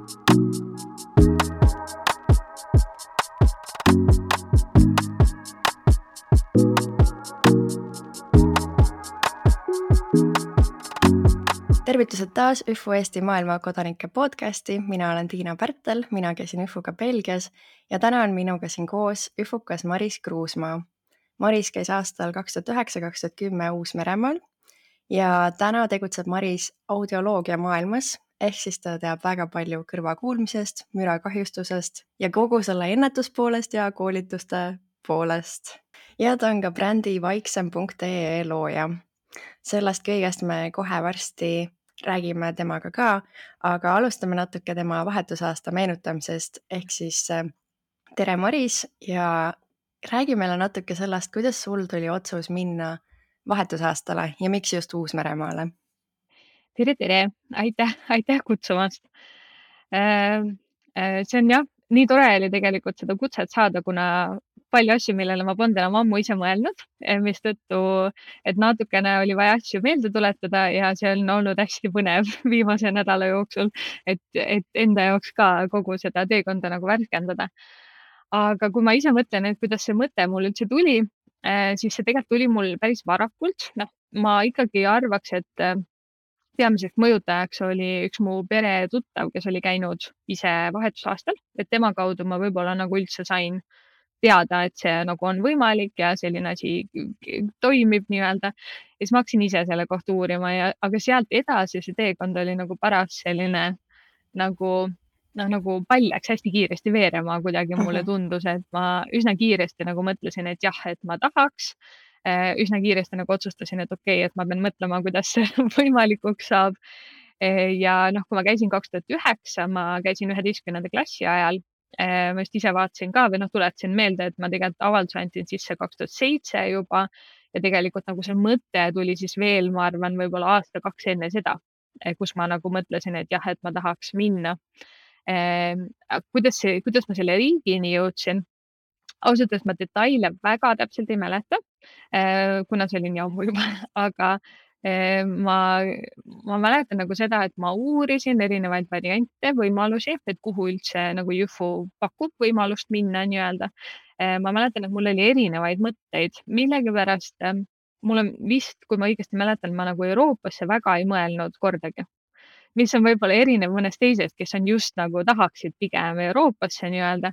Tervitused taas ÜFU Eesti maailma kodanike podcasti. Mina olen Tiina Pärtel, mina käisin ÜFUga Belgias ja täna on minuga siin koos ÜFUkas Maris Kruusmaa. Maris käis aastal 2009-2010 Uus-Meremaal ja täna tegutseb Maris audioloogia maailmas, ehk siis ta teab väga palju kõrvakuulmisest, mürakahjustusest ja kogu selle ennetuspoolest ja koolituste poolest. Ja ta on ka brändi vaiksem.ee looja. Sellest kõigest me kohe varsti räägime temaga ka, aga alustame natuke tema vahetusaasta meenutamisest, ehk siis tere Maris ja räägi meile natuke sellest, kuidas sul tuli otsus minna vahetusaastale ja miks just Uus-Meremaale? Tere! Aitäh kutsumast! See on jah, nii tore oli tegelikult seda kutset saada, kuna palju asju, millele ma polnud enam ammu ise mõelnud, mistõttu, et natukene oli vaja asju meelde tuletada ja see on olnud hästi põnev viimase nädala jooksul, et enda jaoks ka kogu seda teekonda nagu värskendada. Aga kui ma ise mõtlen, et kuidas see mõte mul üldse tuli, siis see tegelikult tuli mul päris varakult. Ma ikkagi arvaks, et peamiseks mõjutajaks oli üks mu pere tuttav, kes oli käinud ise vahetusaastal, et tema kaudu ma võib-olla nagu üldse sain teada, et see nagu on võimalik ja selline asi toimib nii-öelda. Ja siis ma hakkasin ise selle kohta uurima, aga sealt edasi see teekond oli nagu paras selline nagu pall läks hästi kiiresti veerema, kuidagi mulle tundus, et ma üsna kiiresti nagu mõtlesin, et jah, et ma tahaks. Üsna kiiresti nagu otsustasin, et okei, et ma pean mõtlema, kuidas see võimalikuks saab. Ja kui ma käisin 2009, ma käisin 11. klassi ajal, ma just ise vaatasin ka või tuletasin meelde, et ma tegelikult avalduse andsin sisse 2007 juba ja tegelikult nagu see mõte tuli siis veel, ma arvan, võib-olla aasta-kaks enne seda, kus ma nagu mõtlesin, et jah, et ma tahaks minna. Kuidas ma selle riigini jõudsin? Ausalt öeldes ma detaile väga täpselt ei mäleta, kuna see oli nii ammu juba, aga ma mäletan nagu seda, et ma uurisin erinevaid variante, võimalusi, et kuhu üldse nagu ÜFU pakub võimalust minna nii-öelda. Ma mäletan, et mul oli erinevaid mõtteid, millegipärast mul on vist, kui ma õigesti mäletan, ma nagu Euroopasse väga ei mõelnud kordagi. Mis on võib-olla erinev mõnest teisest, kes on just nagu tahaksid pigem Euroopasse nii-öelda.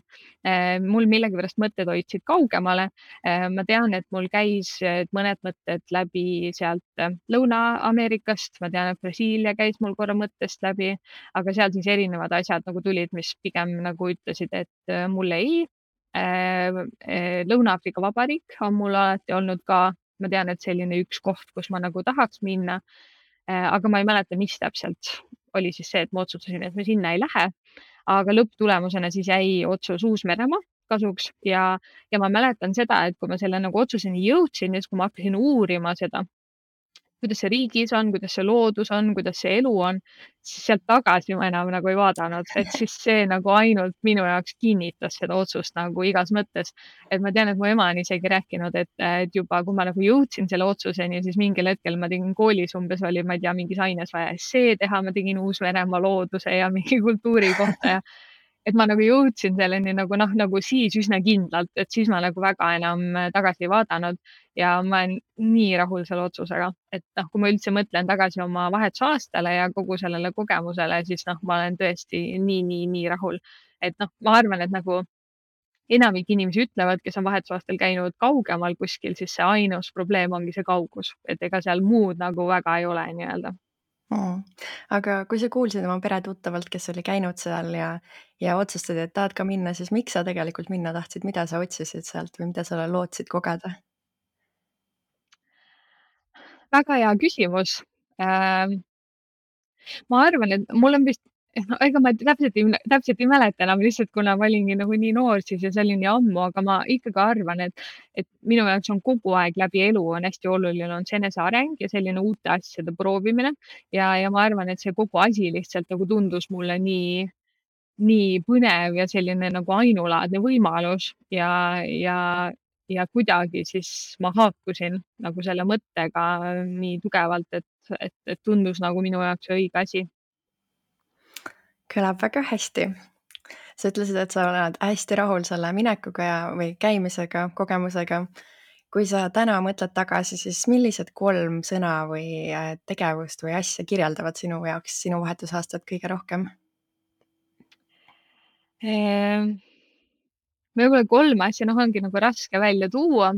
Mul millegipärast mõtted hoidsid kaugemale. Ma tean, et mul käis mõned mõtted läbi sealt Lõuna-Ameerikast. Ma tean, et Brasiilia käis mul korra mõttest läbi, aga seal siis erinevad asjad nagu tulid, mis pigem nagu ütlesid, et mulle ei. Lõuna-Aafrika Vabariik on mul alati olnud ka, ma tean, et selline üks koht, kus ma nagu tahaks minna. Aga ma ei mäleta, mis täpselt oli siis see, et ma otsustasin, et me sinna ei lähe. Aga lõpptulemusena siis jäi otsus Uus-Meremaa kasuks ja ma mäletan seda, et kui ma selle nagu otsuseni jõudsin ja siis, kui ma hakkasin uurima seda, kuidas see riigis on, kuidas see loodus on, kuidas see elu on, siis sealt tagasi ma enam nagu ei vaadanud, et siis see nagu ainult minu jaoks kinnitas seda otsust nagu igas mõttes. Et ma tean, et mu ema on isegi rääkinud, et juba kui ma nagu jõudsin selle otsuseni, siis mingil hetkel ma tegin koolis umbes oli, ma ei tea, mingis aines vaja essee teha, ma tegin Uus-Meremaa looduse ja mingi kultuuri kohta ja et ma nagu jõudsin selleni nagu siis üsna kindlalt, et siis ma nagu väga enam tagasi ei vaadanud ja ma olen nii rahul selle otsusega, et kui ma üldse mõtlen tagasi oma vahetusaastale ja kogu sellele kogemusele, siis ma olen tõesti nii rahul. Et ma arvan, et nagu enamik inimesi ütlevad, kes on vahetusaastal käinud kaugemal kuskil, siis see ainus probleem ongi see kaugus, et ega seal muud nagu väga ei ole nii-öelda. Aga kui sa kuulsid oma pere tuttavalt, kes oli käinud seal ja otsustasid, et tahad ka minna, siis miks sa tegelikult minna tahtsid, mida sa otsisid sealt või mida sa lootsid kogeda? Väga hea küsimus. Ma arvan, et mul on vist, ega ma täpselt ei mäleta enam lihtsalt, kuna ma olingi nagu nii noor siis ja see oli nii ammu, aga ma ikkagi arvan, et minu jaoks on kogu aeg läbi elu on hästi oluline on see eneseareng ja selline uute asjade proovimine ja ma arvan, et see kogu asi lihtsalt nagu tundus mulle nii põnev ja selline nagu ainulaadne võimalus ja kuidagi siis ma haakusin nagu selle mõttega nii tugevalt, et tundus nagu minu jaoks õige asi. Kõlab väga hästi. Sa ütlesid, et sa oled hästi rahul selle minekuga või käimisega, kogemusega. Kui sa täna mõtled tagasi, siis millised 3 sõna või tegevust või asja kirjeldavad sinu jaoks sinu vahetusaastat kõige rohkem? Võib-olla 3 asja, ongi nagu raske välja tuua.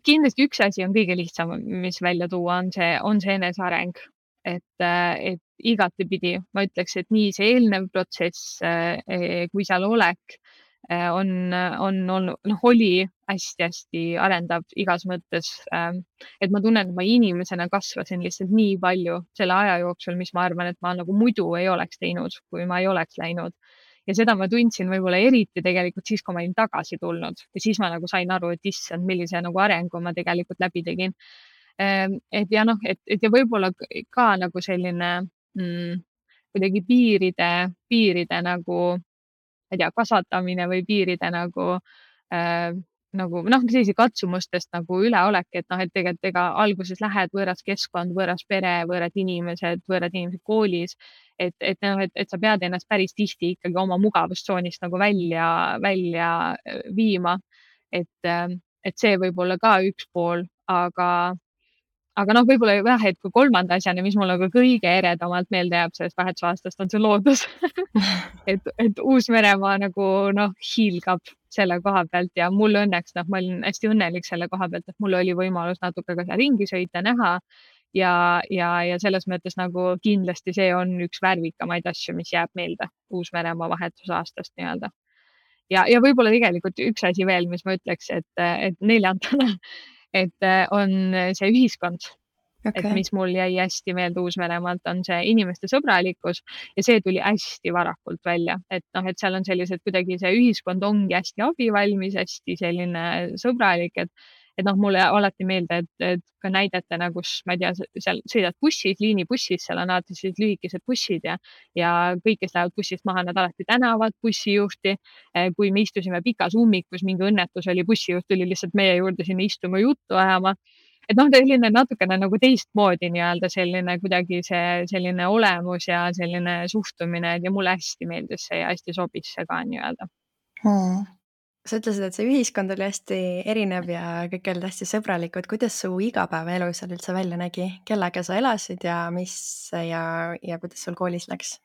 Kindlasti üks asi on kõige lihtsam, mis välja tuua, on see eneseareng. Et igatepidi ma ütleks, et nii see eelnev protsess kui seal olek on olnud, oli hästi-hästi arendav igas mõttes. Et ma tunnen, et ma inimesena kasvasin lihtsalt nii palju selle aja jooksul, mis ma arvan, et ma nagu muidu ei oleks teinud, kui ma ei oleks läinud. Ja seda ma tundsin võib-olla eriti tegelikult siis, kui ma olin tagasi tulnud ja siis ma nagu sain aru, et issand, millise nagu arengu ma tegelikult läbi tegin. Et ja et ja võib-olla ka nagu selline kuidagi piiride nagu, ma ei tea, kasvatamine või piiride nagu sellise katsumustest nagu üleolek, et tegelikult ega alguses lähed võõras keskkond, võõras pere, võõrad inimesed koolis, et sa pead ennast päris tihti ikkagi oma mugavustsoonist nagu välja viima. Et see võib olla ka üks pool, aga võib-olla jah, et kui 3. asjana, mis mulle nagu kõige eredamalt meelde jääb sellest vahetusaastast, on see loodus. et Uus-Meremaa nagu hiilgab selle koha pealt ja mul õnneks, ma olin hästi õnnelik selle koha pealt, et mul oli võimalus natuke ka seal ringi sõita, näha ja selles mõttes nagu kindlasti see on üks värvikamaid asju, mis jääb meelde Uus-Meremaa vahetusaastast nii-öelda. Ja võib-olla tegelikult üks asi veel, mis ma ütleks, et 4. et on see ühiskond. Et mis mul jäi hästi meelde Uus-Meremaalt, on see inimeste sõbralikkus ja see tuli hästi varakult välja, et seal on sellised kuidagi see ühiskond ongi hästi abivalmis, hästi selline sõbralik, et mulle alati meelde, et ka näidetena, kus ma ei tea, seal sõidad bussis, liinibussis, seal on alati sellised lühikesed bussid ja kõik, kes lähevad bussist maha, nad alati tänavad bussijuhti. Kui me istusime pikas ummikus, mingi õnnetus oli, bussijuht tuli lihtsalt meie juurde sinna istuma juttu ajama. Et selline natukene nagu teistmoodi nii-öelda selline kuidagi see selline olemus ja selline suhtumine ja mulle hästi meeldis see ja hästi sobis see ka nii-öelda. Sa ütlesid, et see ühiskond oli hästi erinev ja kõik olid hästi sõbralikud. Kuidas su igapäevaelu seal üldse välja nägi? Kellega sa elasid ja kuidas sul koolis läks?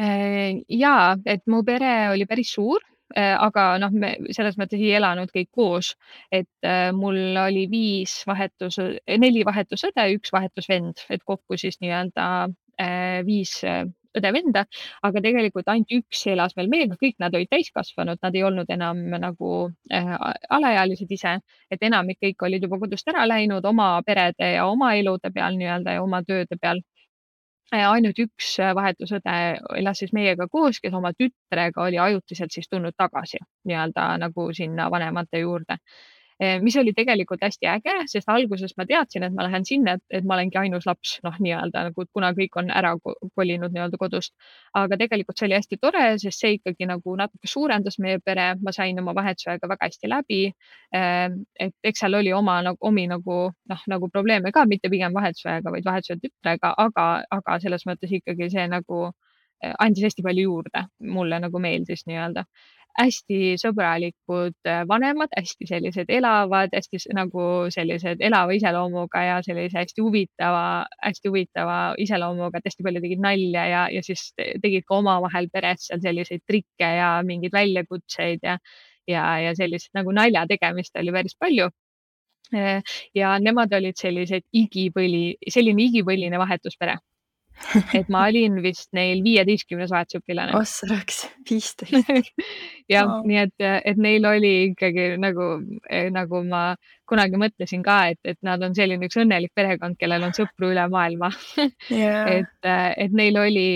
Jaa, et mu pere oli päris suur, aga me selles mõttes ei elanud kõik koos, et mul oli 4 vahetusõde, 1 vahetusvend, et kokku siis nii-öelda 5 õde-venda, aga tegelikult ainult 1 elas veel meiega, kõik nad olid täiskasvanud, nad ei olnud enam nagu alaealised ise, et enamik kõik olid juba kodust ära läinud oma perede ja oma elude peal nii-öelda ja oma tööde peal. Ainult 1 vahetusõde elas siis meiega koos, kes oma tütrega oli ajutiselt siis tulnud tagasi nii-öelda nagu sinna vanemate juurde. Mis oli tegelikult hästi äge, sest alguses ma teadsin, et ma lähen sinna, et ma olengi ainus laps, nii-öelda nagu, kuna kõik on ära kolinud nii-öelda kodust. Aga tegelikult see oli hästi tore, sest see ikkagi nagu natuke suurendas meie pere, ma sain oma vahetusaega väga hästi läbi. Et eks seal oli omi nagu probleeme ka, mitte pigem vahetusajaga, vaid vahetusajal tütrega, aga selles mõttes ikkagi see nagu andis hästi palju juurde. Mulle nagu meeldis nii-öelda. Hästi sõbralikud vanemad, hästi sellised elavad, hästi nagu sellised elava iseloomuga ja sellise hästi huvitava iseloomuga, et hästi palju tegid nalja ja siis tegid ka omavahel peres seal selliseid trikke ja mingeid väljakutseid ja sellist nagu nalja tegemist oli päris palju. Ja nemad olid selline igipõline vahetuspere. Et ma olin vist neil 15. vahetusõpilane. Ossaraks, 15. Jah, nii et neil oli ikkagi nagu ma kunagi mõtlesin ka, et nad on selline üks õnnelik perekond, kellel on sõpru üle maailma. Yeah. Et neil oli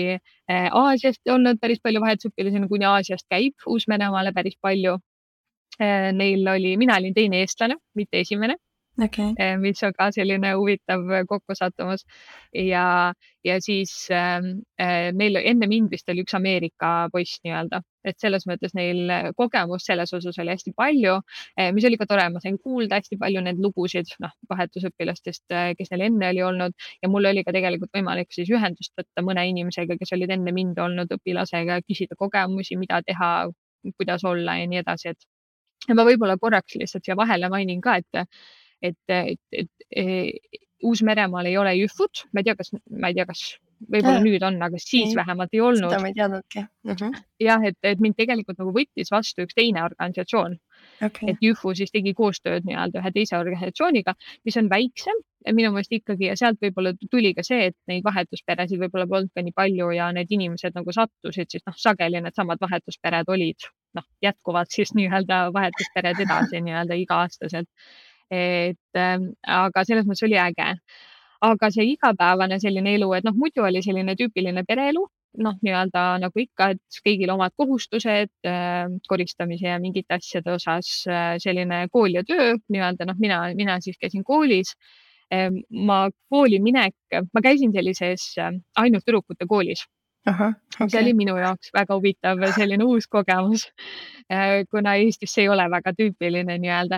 Aasiast olnud päris palju vahetusõpilasi, kuni Aasiast käib Uus-Meremaale päris palju. Mina olin teine eestlane, mitte esimene. okei. mis on ka selline huvitav kokkusattumus. ja, ja siis neil enne mind vist oli üks Ameerika poiss nii-öelda, et selles mõttes neil kogemust selles osas oli hästi palju, mis oli ka tore, ma sain kuulda hästi palju neid lugusid, noh, vahetusõpilastest, kes neil enne oli olnud ja mul oli ka tegelikult võimalik siis ühendust võtta mõne inimesega, kes olid enne mind olnud õpilasega, küsida kogemusi, mida teha, kuidas olla ja nii edasi, et ja ma võib-olla korraks lihtsalt siia vahele mainin ka, et Uus-Meremaal ei ole jüfud, ma ei tea, kas võib-olla nüüd on, aga siis Ei, vähemalt ei seda olnud. ma ei teadnudki. Jah, et mind tegelikult nagu võttis vastu üks teine organisatsioon, Okei. et Jüfu siis tegi koostööd nii-öelda ühe teise organisatsiooniga, mis on väiksem minu meelest ikkagi ja sealt võib-olla tuli ka see, et neid vahetusperesid võib-olla polnud ka nii palju ja need inimesed nagu sattusid siis noh, sageli needsamad vahetuspered olid noh, jätkuvad siis nii-öelda vahetuspered edasi nii-öelda iga-aastaselt. Aga selles mõttes oli äge. Aga see igapäevane selline elu, et noh, muidu oli selline tüüpiline pereelu, noh, nii-öelda nagu ikka, et kõigil omad kohustused koristamise ja mingite asjade osas, selline kool ja töö nii-öelda, noh, mina siis käisin koolis. Ma käisin sellises ainult tüdrukute koolis, Ahah, mis okei. oli minu jaoks väga huvitav, selline uus kogemus, kuna Eestis see ei ole väga tüüpiline nii-öelda.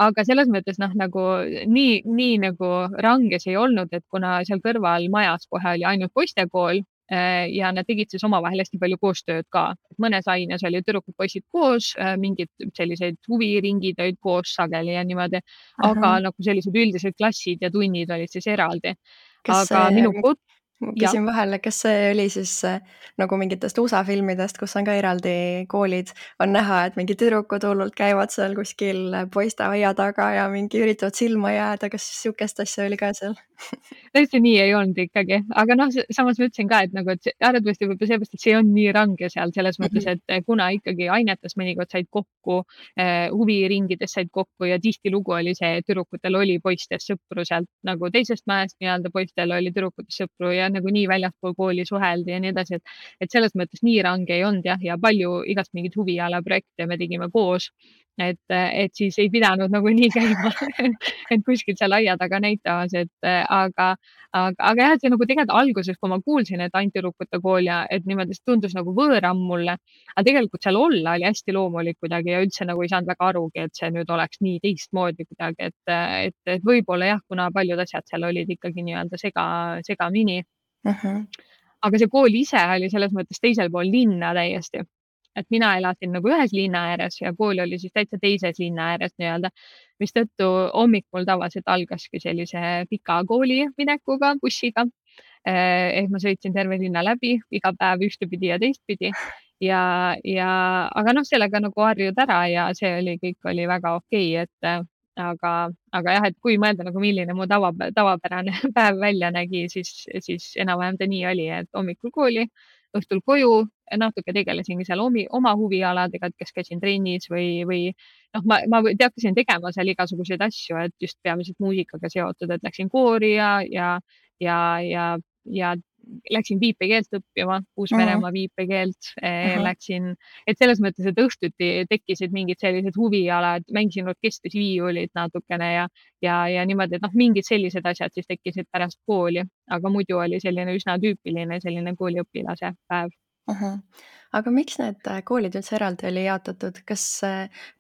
Aga selles mõttes noh, nagu nii nagu range see ei olnud, et kuna seal kõrval majas kohe oli ainult poistekool ja nad tegid siis omavahel hästi palju koostööd ka. Mõnes aines olid tüdrukud-poisid koos, mingid selliseid huviringid olid koos sageli ja niimoodi, aga Ahah. nagu sellised üldised klassid ja tunnid olid siis eraldi. Kas Aga see, minu kod-, ma jah. küsin vahele, kas see oli siis nagu mingitest USA filmidest, kus on ka eraldi koolid, on näha, et mingid tüdrukud hullult käivad seal kuskil poiste aia taga ja mingi üritavad silma jääda, kas sihukest asja oli ka seal? täiesti nii ei olnud ikkagi, aga noh, samas ma ütlesin ka, et nagu, et arvatavasti võib-olla seepärast, et see on nii range seal selles mõttes, et kuna ikkagi ainetes mõnikord said kokku, huviringides said kokku ja tihtilugu oli see, et tüdrukutel oli poistest sõpru sealt nagu teisest mäest nii-öelda, poistel oli tüdrukutest sõpru ja nagu nii väljaspool kooli suheldi ja nii edasi, et selles mõttes nii range ei olnud jah, ja palju igast mingeid huvialaprojekte me tegime koos. Et siis ei pidanud nagu nii käima et kuskil seal aia taga näitamas, aga jah, et see nagu tegelikult alguses, kui ma kuulsin, et ainult tüdrukute kool ja et niimoodi, see tundus nagu võõram mulle. Aga tegelikult seal olla oli hästi loomulik kuidagi ja üldse nagu ei saanud väga arugi, et see nüüd oleks nii teistmoodi kuidagi, et võib-olla jah, kuna paljud asjad seal olid ikkagi nii-öelda segamini. Aga see kool ise oli selles mõttes teisel pool linna täiesti. Et mina elasin nagu ühes linna ääres ja kool oli siis täitsa teises linna ääres nii-öelda, mistõttu hommik mul tavaliselt algaski sellise pika kooliminekuga bussiga. Ehk ma sõitsin terve linna läbi iga päev ühtepidi ja teistpidi aga noh, sellega nagu harjud ära ja see oli, kõik oli väga okei, aga jah, et kui mõelda nagu milline mu tavapärane päev välja nägi, siis enam-vähem ta nii oli, et hommikul kooli, õhtul koju, natuke tegelesingi seal oma huvialadega, et kas käisin trennis või noh, ma hakkasin tegema seal igasuguseid asju, et just peamiselt muusikaga seotud, et läksin koori ja läksin viipekeelt õppima, Uus-Meremaa viipekeelt, läksin, et selles mõttes, et õhtuti tekkisid mingid sellised huvialad, mängisin orkestris viiulit natukene ja niimoodi, et noh, mingid sellised asjad siis tekkisid pärast kooli, aga muidu oli selline üsna tüüpiline selline kooliõpilase päev. Aga miks need koolid üldse eraldi oli jaotatud? Kas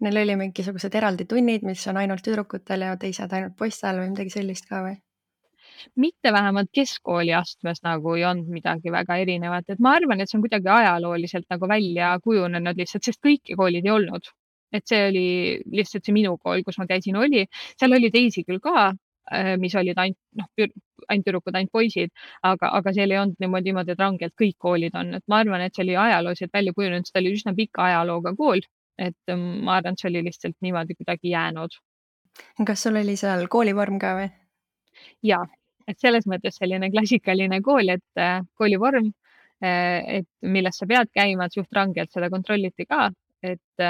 neil oli mingisugused eraldi tunnid, mis on ainult tüdrukutel ja teised ainult poistel või midagi sellist ka või? Mitte vähemalt keskkooli astmes nagu ei olnud midagi väga erinevat, et ma arvan, et see on kuidagi ajalooliselt nagu välja kujunenud lihtsalt, sest kõiki koolid ei olnud. Et see oli lihtsalt see minu kool, kus ma käisin, oli, seal oli teisi küll ka, mis olid ainult noh, ainult tüdrukud, ainult poisid, aga seal ei olnud niimoodi, et rangelt kõik koolid on, et ma arvan, et see oli ajalooliselt välja kujunenud, sest ta oli üsna pika ajalooga kool, et ma arvan, et see oli lihtsalt niimoodi kuidagi jäänud. Kas sul oli seal koolivorm ka või? Ja, et selles mõttes selline klassikaline kool, et koolivorm, et milles sa pead käima, et suht rangelt seda kontrolliti ka, et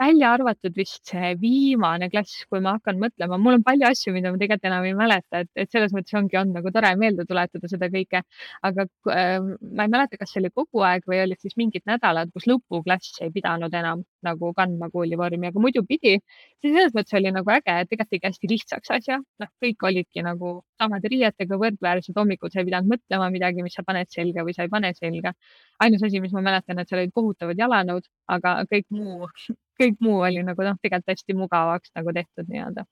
välja arvatud vist see viimane klass, kui ma hakkan mõtlema, mul on palju asju, mida ma tegelikult enam ei mäleta, et selles mõttes ongi olnud nagu tore meelde tuletada seda kõike, aga ma ei mäleta, kas see oli kogu aeg või olid siis mingid nädalad, kus lõpuklass ei pidanud enam nagu kandma koolivormi, aga muidu pidi. See selles mõttes oli nagu äge, et tegelikult tegi hästi lihtsaks asja. Noh, kõik olidki nagu samade riietega võrdväärsed, hommikul sa ei pidanud mõtlema midagi, mis sa paned selga või sa ei pane selga. Ainus asi, mis ma mäletan, et seal olid kohutavad jalanõud, aga kõik muu oli nagu tegelikult hästi mugavaks nagu tehtud nii-öelda.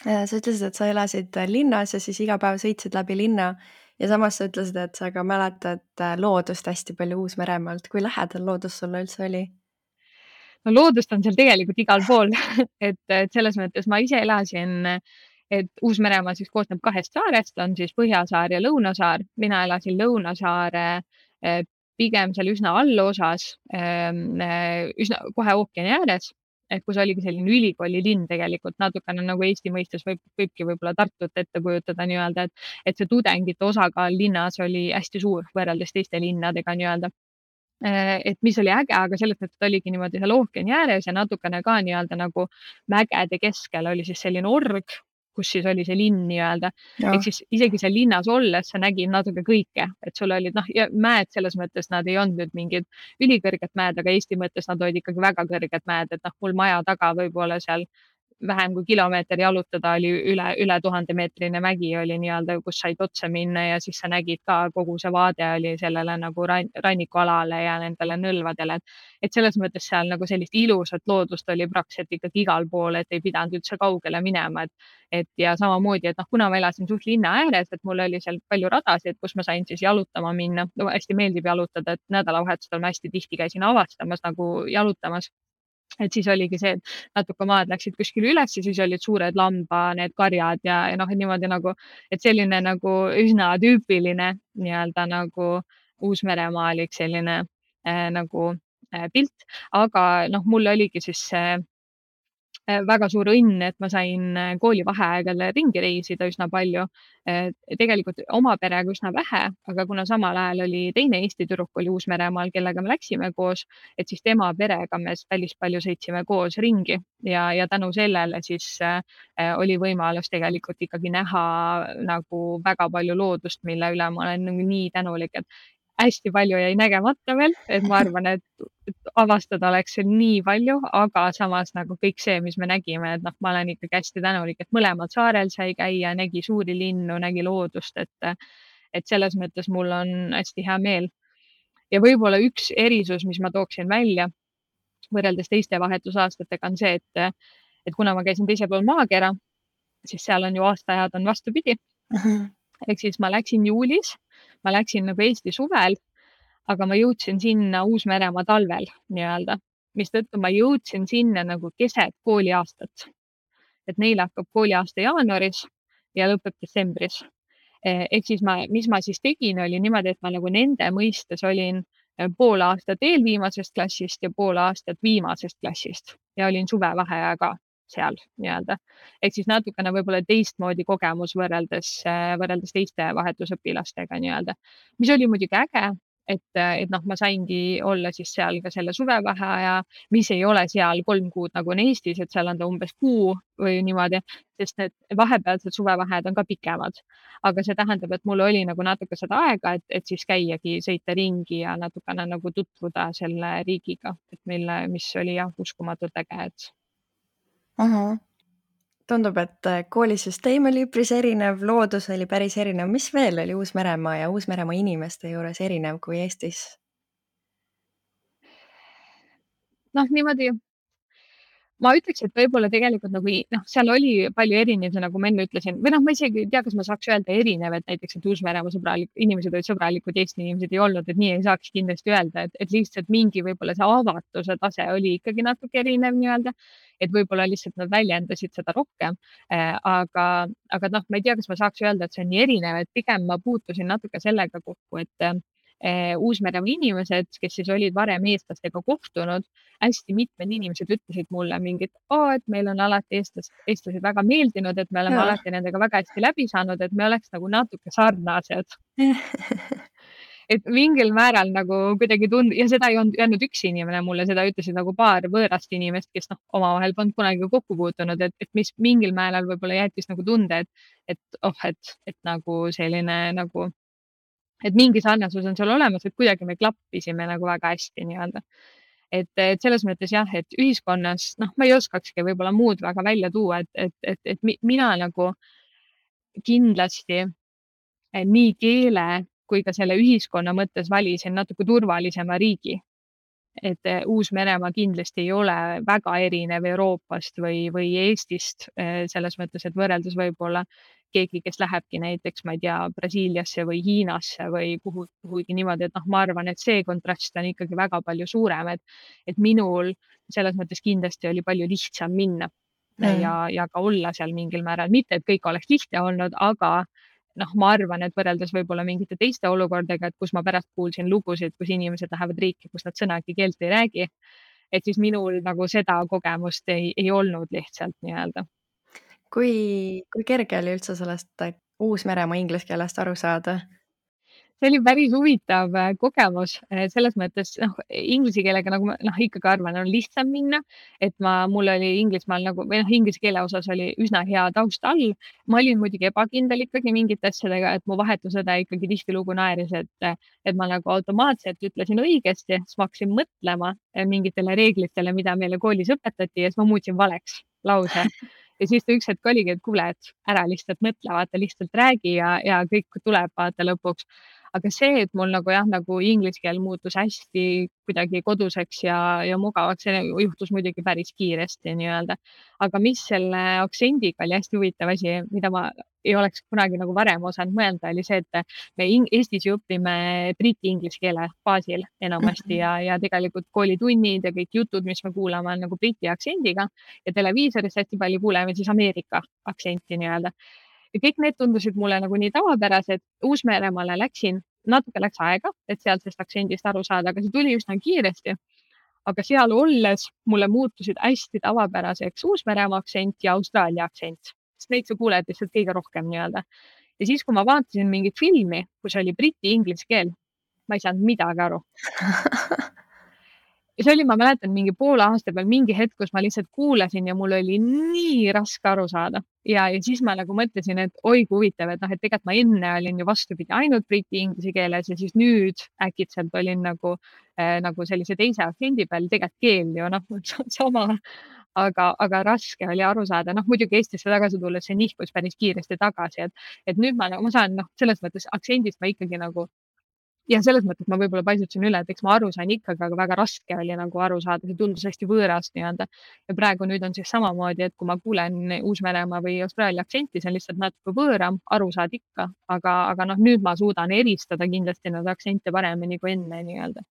Sa ütlesid, et sa elasid linnas ja siis iga päev sõitsid läbi linna ja samas sa ütlesid, et sa ka mäletad loodust hästi palju Uus-Meremaalt. Kui lähedal loodus sulle üldse oli? No loodust on seal tegelikult igal pool et selles mõttes ma ise elasin, et Uus-Meremaa siis koosneb 2 saarest, on siis Põhjasaar ja Lõunasaar. Mina elasin Lõunasaare pigem seal üsna allosas, üsna kohe ookeani ääres, et kus oligi selline ülikooli linn tegelikult natukene nagu Eesti mõistes võibki võib-olla Tartut ette kujutada nii-öelda, et see tudengite osakaal linnas oli hästi suur võrreldes teiste linnadega nii-öelda. Et mis oli äge, aga selles mõttes, et oligi niimoodi seal ookeani ääres ja natukene ka nii-öelda nagu mägede keskel oli siis selline org, kus siis oli see linn nii-öelda. Ehk siis isegi seal linnas olles sa nägid natuke kõike, et sul olid ja mäed selles mõttes nad ei olnud nüüd mingid ülikõrged mäed, aga Eesti mõttes nad olid ikkagi väga kõrged mäed, et mul maja taga võib-olla seal vähem kui kilomeeter jalutada oli üle 1000-meetrine mägi oli nii-öelda, kus said otse minna ja siis sa nägid ka kogu see vaade oli sellele nagu rannikualale ja nendele nõlvadele. Et selles mõttes seal nagu sellist ilusat loodust oli praktiliselt ikkagi igal pool, et ei pidanud üldse kaugele minema. Et ja samamoodi, et kuna ma elasin suht linna ääres, et mul oli seal palju radasid, kus ma sain siis jalutama minna. Hästi meeldib jalutada, et nädalavahetustel ma hästi tihti käisin avastamas nagu jalutamas. Et siis oligi see, et natuke maad läksid kuskile üles ja siis olid suured need karjad ja niimoodi nagu, et selline nagu üsna tüüpiline nii-öelda nagu Uus-Meremaalik selline nagu pilt, aga mul oligi siis väga suur õnn, et ma sain koolivaheaegadel ringi reisida üsna palju. Tegelikult oma perega üsna vähe, aga kuna samal ajal oli teine Eesti tüdruk oli Uus-Meremaal, kellega me läksime koos, et siis tema perega me päris palju sõitsime koos ringi ja tänu sellele siis oli võimalus tegelikult ikkagi näha nagu väga palju loodust, mille üle ma olen nii tänulik, et hästi palju jäi nägemata veel, et ma arvan, et avastada oleks seal nii palju, aga samas nagu kõik see, mis me nägime, et ma olen ikkagi hästi tänulik, et mõlemal saarel sai käia, nägi suuri linnu, nägi loodust, et selles mõttes mul on hästi hea meel. Ja võib-olla üks erisus, mis ma tooksin välja võrreldes teiste vahetusaastatega on see, et kuna ma käisin teisel pool maakera, siis seal on ju aastaajad on vastupidi. Ehk siis ma läksin juulis, ma läksin nagu Eesti suvel, aga ma jõudsin sinna Uus-Meremaa talvel nii-öelda, mistõttu ma jõudsin sinna nagu keset kooliaastat. Et neil hakkab kooliaasta jaanuaris ja lõpeb detsembris. Ehk siis mis ma siis tegin, oli niimoodi, et ma nagu nende mõistes olin pool aastat eelviimasest klassist ja pool aastat viimasest klassist ja olin suvevaheaja ka seal nii-öelda. Ehk siis natukene võib-olla teistmoodi kogemus võrreldes teiste vahetusõpilastega nii-öelda, mis oli muidugi äge, et ma saingi olla siis seal ka selle suvevaheaja, mis ei ole seal 3 kuud nagu on Eestis, et seal on ta umbes kuu või niimoodi, sest need vahepealsed suvevaheajad on ka pikemad. Aga see tähendab, et mul oli nagu natuke seda aega, et siis käiagi, sõita ringi ja natukene nagu tutvuda selle riigiga, et mis oli jah, uskumatult äge, et. Tundub, et koolisüsteem oli üpris erinev, loodus oli päris erinev. Mis veel oli Uus-Meremaa ja Uus-Meremaa inimeste juures erinev kui Eestis? Niimoodi, ma ütleks, et võib-olla tegelikult nagu seal oli palju erinevusi, nagu ma enne ütlesin, või ma isegi ei tea, kas ma saaks öelda erinev, et näiteks, et Uus-Meremaa inimesed olid sõbralikud, Eesti inimesed ei olnud, et nii ei saaks kindlasti öelda, et lihtsalt mingi võib-olla see avatuse tase oli ikkagi natuke erinev nii-öelda, et võib-olla lihtsalt nad väljendasid seda rohkem. Aga ma ei tea, kas ma saaks öelda, et see on nii erinev, et pigem ma puutusin natuke sellega kokku, et Uus-Meremaa inimesed, kes siis olid varem eestlastega kohtunud, hästi mitmed inimesed ütlesid mulle mingit, et meil on alati eestlased väga meeldinud, et me oleme alati nendega väga hästi läbi saanud, et me oleks nagu natuke sarnased. Et mingil määral nagu kuidagi ja seda ei olnud öelnud üks inimene mulle, seda ütlesid nagu paar võõrast inimest, kes omavahel polnud kunagi kokku puutunud, et mis mingil määral võib-olla jättis nagu tunde, et nagu selline nagu et mingi sarnasus on seal olemas, et kuidagi me klappisime nagu väga hästi nii-öelda. et selles mõttes jah, et ühiskonnas, noh, ma ei oskakski võib-olla muud väga välja tuua, et mina nagu kindlasti nii keele kui ka selle ühiskonna mõttes valisin natuke turvalisema riigi. Et Uus-Meremaa kindlasti ei ole väga erinev Euroopast või Eestist selles mõttes, et võrreldes võib-olla keegi, kes lähebki näiteks, ma ei tea, Brasiiliasse või Hiinasse või kuhugi niimoodi, et noh, ma arvan, et see kontrast on ikkagi väga palju suurem, et minul selles mõttes kindlasti oli palju lihtsam minna ja ka olla seal mingil määral, mitte et kõik oleks lihtne olnud, aga noh, ma arvan, et võrreldes võib-olla mingite teiste olukordadega, et kus ma pärast kuulsin lugusid, kus inimesed lähevad riiki, kus nad sõnagi keelt ei räägi, et siis minul nagu seda kogemust ei olnud lihtsalt nii-öelda. Kui kerge oli üldse sellest Uus-Meremaa inglise keelest aru saada? See oli päris huvitav kogemus selles mõttes, noh, inglise keelega nagu ma ikkagi arvan, on lihtsam minna, et mul oli Inglismaal nagu või noh, inglise keele osas oli üsna hea taust all. Ma olin muidugi ebakindel ikkagi mingite asjadega, et mu vahetusõde ikkagi tihtilugu naeris, et ma nagu automaatselt ütlesin õigesti, siis ma hakkasin mõtlema mingitele reeglitele, mida meile koolis õpetati ja siis ma muutsin valeks lause. Ja siis ta üks hetk oligi, et kuule, et ära lihtsalt mõtle, vaata, lihtsalt räägi ja kõik tuleb vaata lõpuks. Aga see, et mul nagu jah, nagu inglise keel muutus hästi kuidagi koduseks ja mugavaks, see juhtus muidugi päris kiiresti nii-öelda. Aga mis selle aktsendiga oli hästi huvitav asi, mida ma ei oleks kunagi nagu varem osanud mõelda, oli see, et me Eestis ju õpime briti inglise keele baasil enamasti ja tegelikult koolitunnid ja kõik jutud, mis me kuulame, on nagu briti aktsendiga ja televiisoris hästi palju kuuleme siis Ameerika aktsenti nii-öelda. Ja kõik need tundusid mulle nagu nii tavapärased. Uus-Meremaale natuke läks aega, et sealsest aktsendist aru saada, aga see tuli üsna kiiresti. Aga seal olles mulle muutusid hästi tavapäraseks Uus-Meremaa aktsent ja Austraalia aktsent, sest neid sa kuuled lihtsalt kõige rohkem nii-öelda. Ja siis, kui ma vaatasin mingit filmi, kus oli briti inglise keel, ma ei saanud midagi aru. Ja see oli, ma mäletan, mingi poole aasta peal mingi hetk, kus ma lihtsalt kuulasin ja mul oli nii raske aru saada. Ja siis ma nagu mõtlesin, et oi kui huvitav, et noh, et tegelikult ma enne olin ju vastupidi ainult briti inglise keeles ja siis nüüd äkitselt olin nagu sellise teise aktsendi peal, tegelikult keel ju noh, sama, aga raske oli aru saada. Noh, muidugi Eestisse tagasi tulles see nihkus päris kiiresti tagasi, et nüüd ma saan noh, selles mõttes aktsendist ma ikkagi nagu ja selles mõttes ma võib-olla paisutasin üle, et eks ma aru sain ikkagi, aga väga raske oli nagu aru saada, see tundus hästi võõras nii-öelda. Ja praegu nüüd on siis samamoodi, et kui ma kuulen Uus-Meremaa või Austraalia aktsenti, see on lihtsalt natuke võõram, aru saad ikka, aga noh, nüüd ma suudan eristada kindlasti neid aktsente paremini kui enne nii-öelda.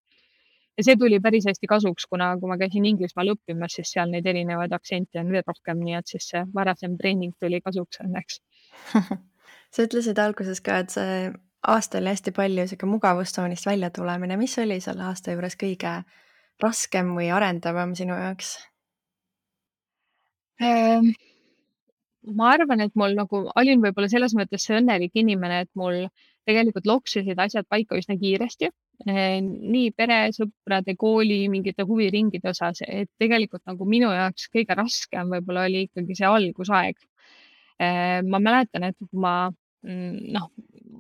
Ja see tuli päris hästi kasuks, kuna kui ma käisin Inglismaal õppimas, siis seal neid erinevaid aktsente on veel rohkem, nii et siis see varasem treening tuli kasuks õnneks. Sa ütlesid alguses ka, et see aasta oli hästi palju sihuke mugavustsoonist välja tulemine. Mis oli selle aasta juures kõige raskem või arendavam sinu jaoks? Ma arvan, et mul nagu olin võib-olla selles mõttes see õnnelik inimene, et mul tegelikult loksusid asjad paika üsna kiiresti. Nii pere, sõprade, kooli, mingite huviringide osas, et tegelikult nagu minu jaoks kõige raskem võib-olla oli ikkagi see algusaeg. Ma mäletan, et noh,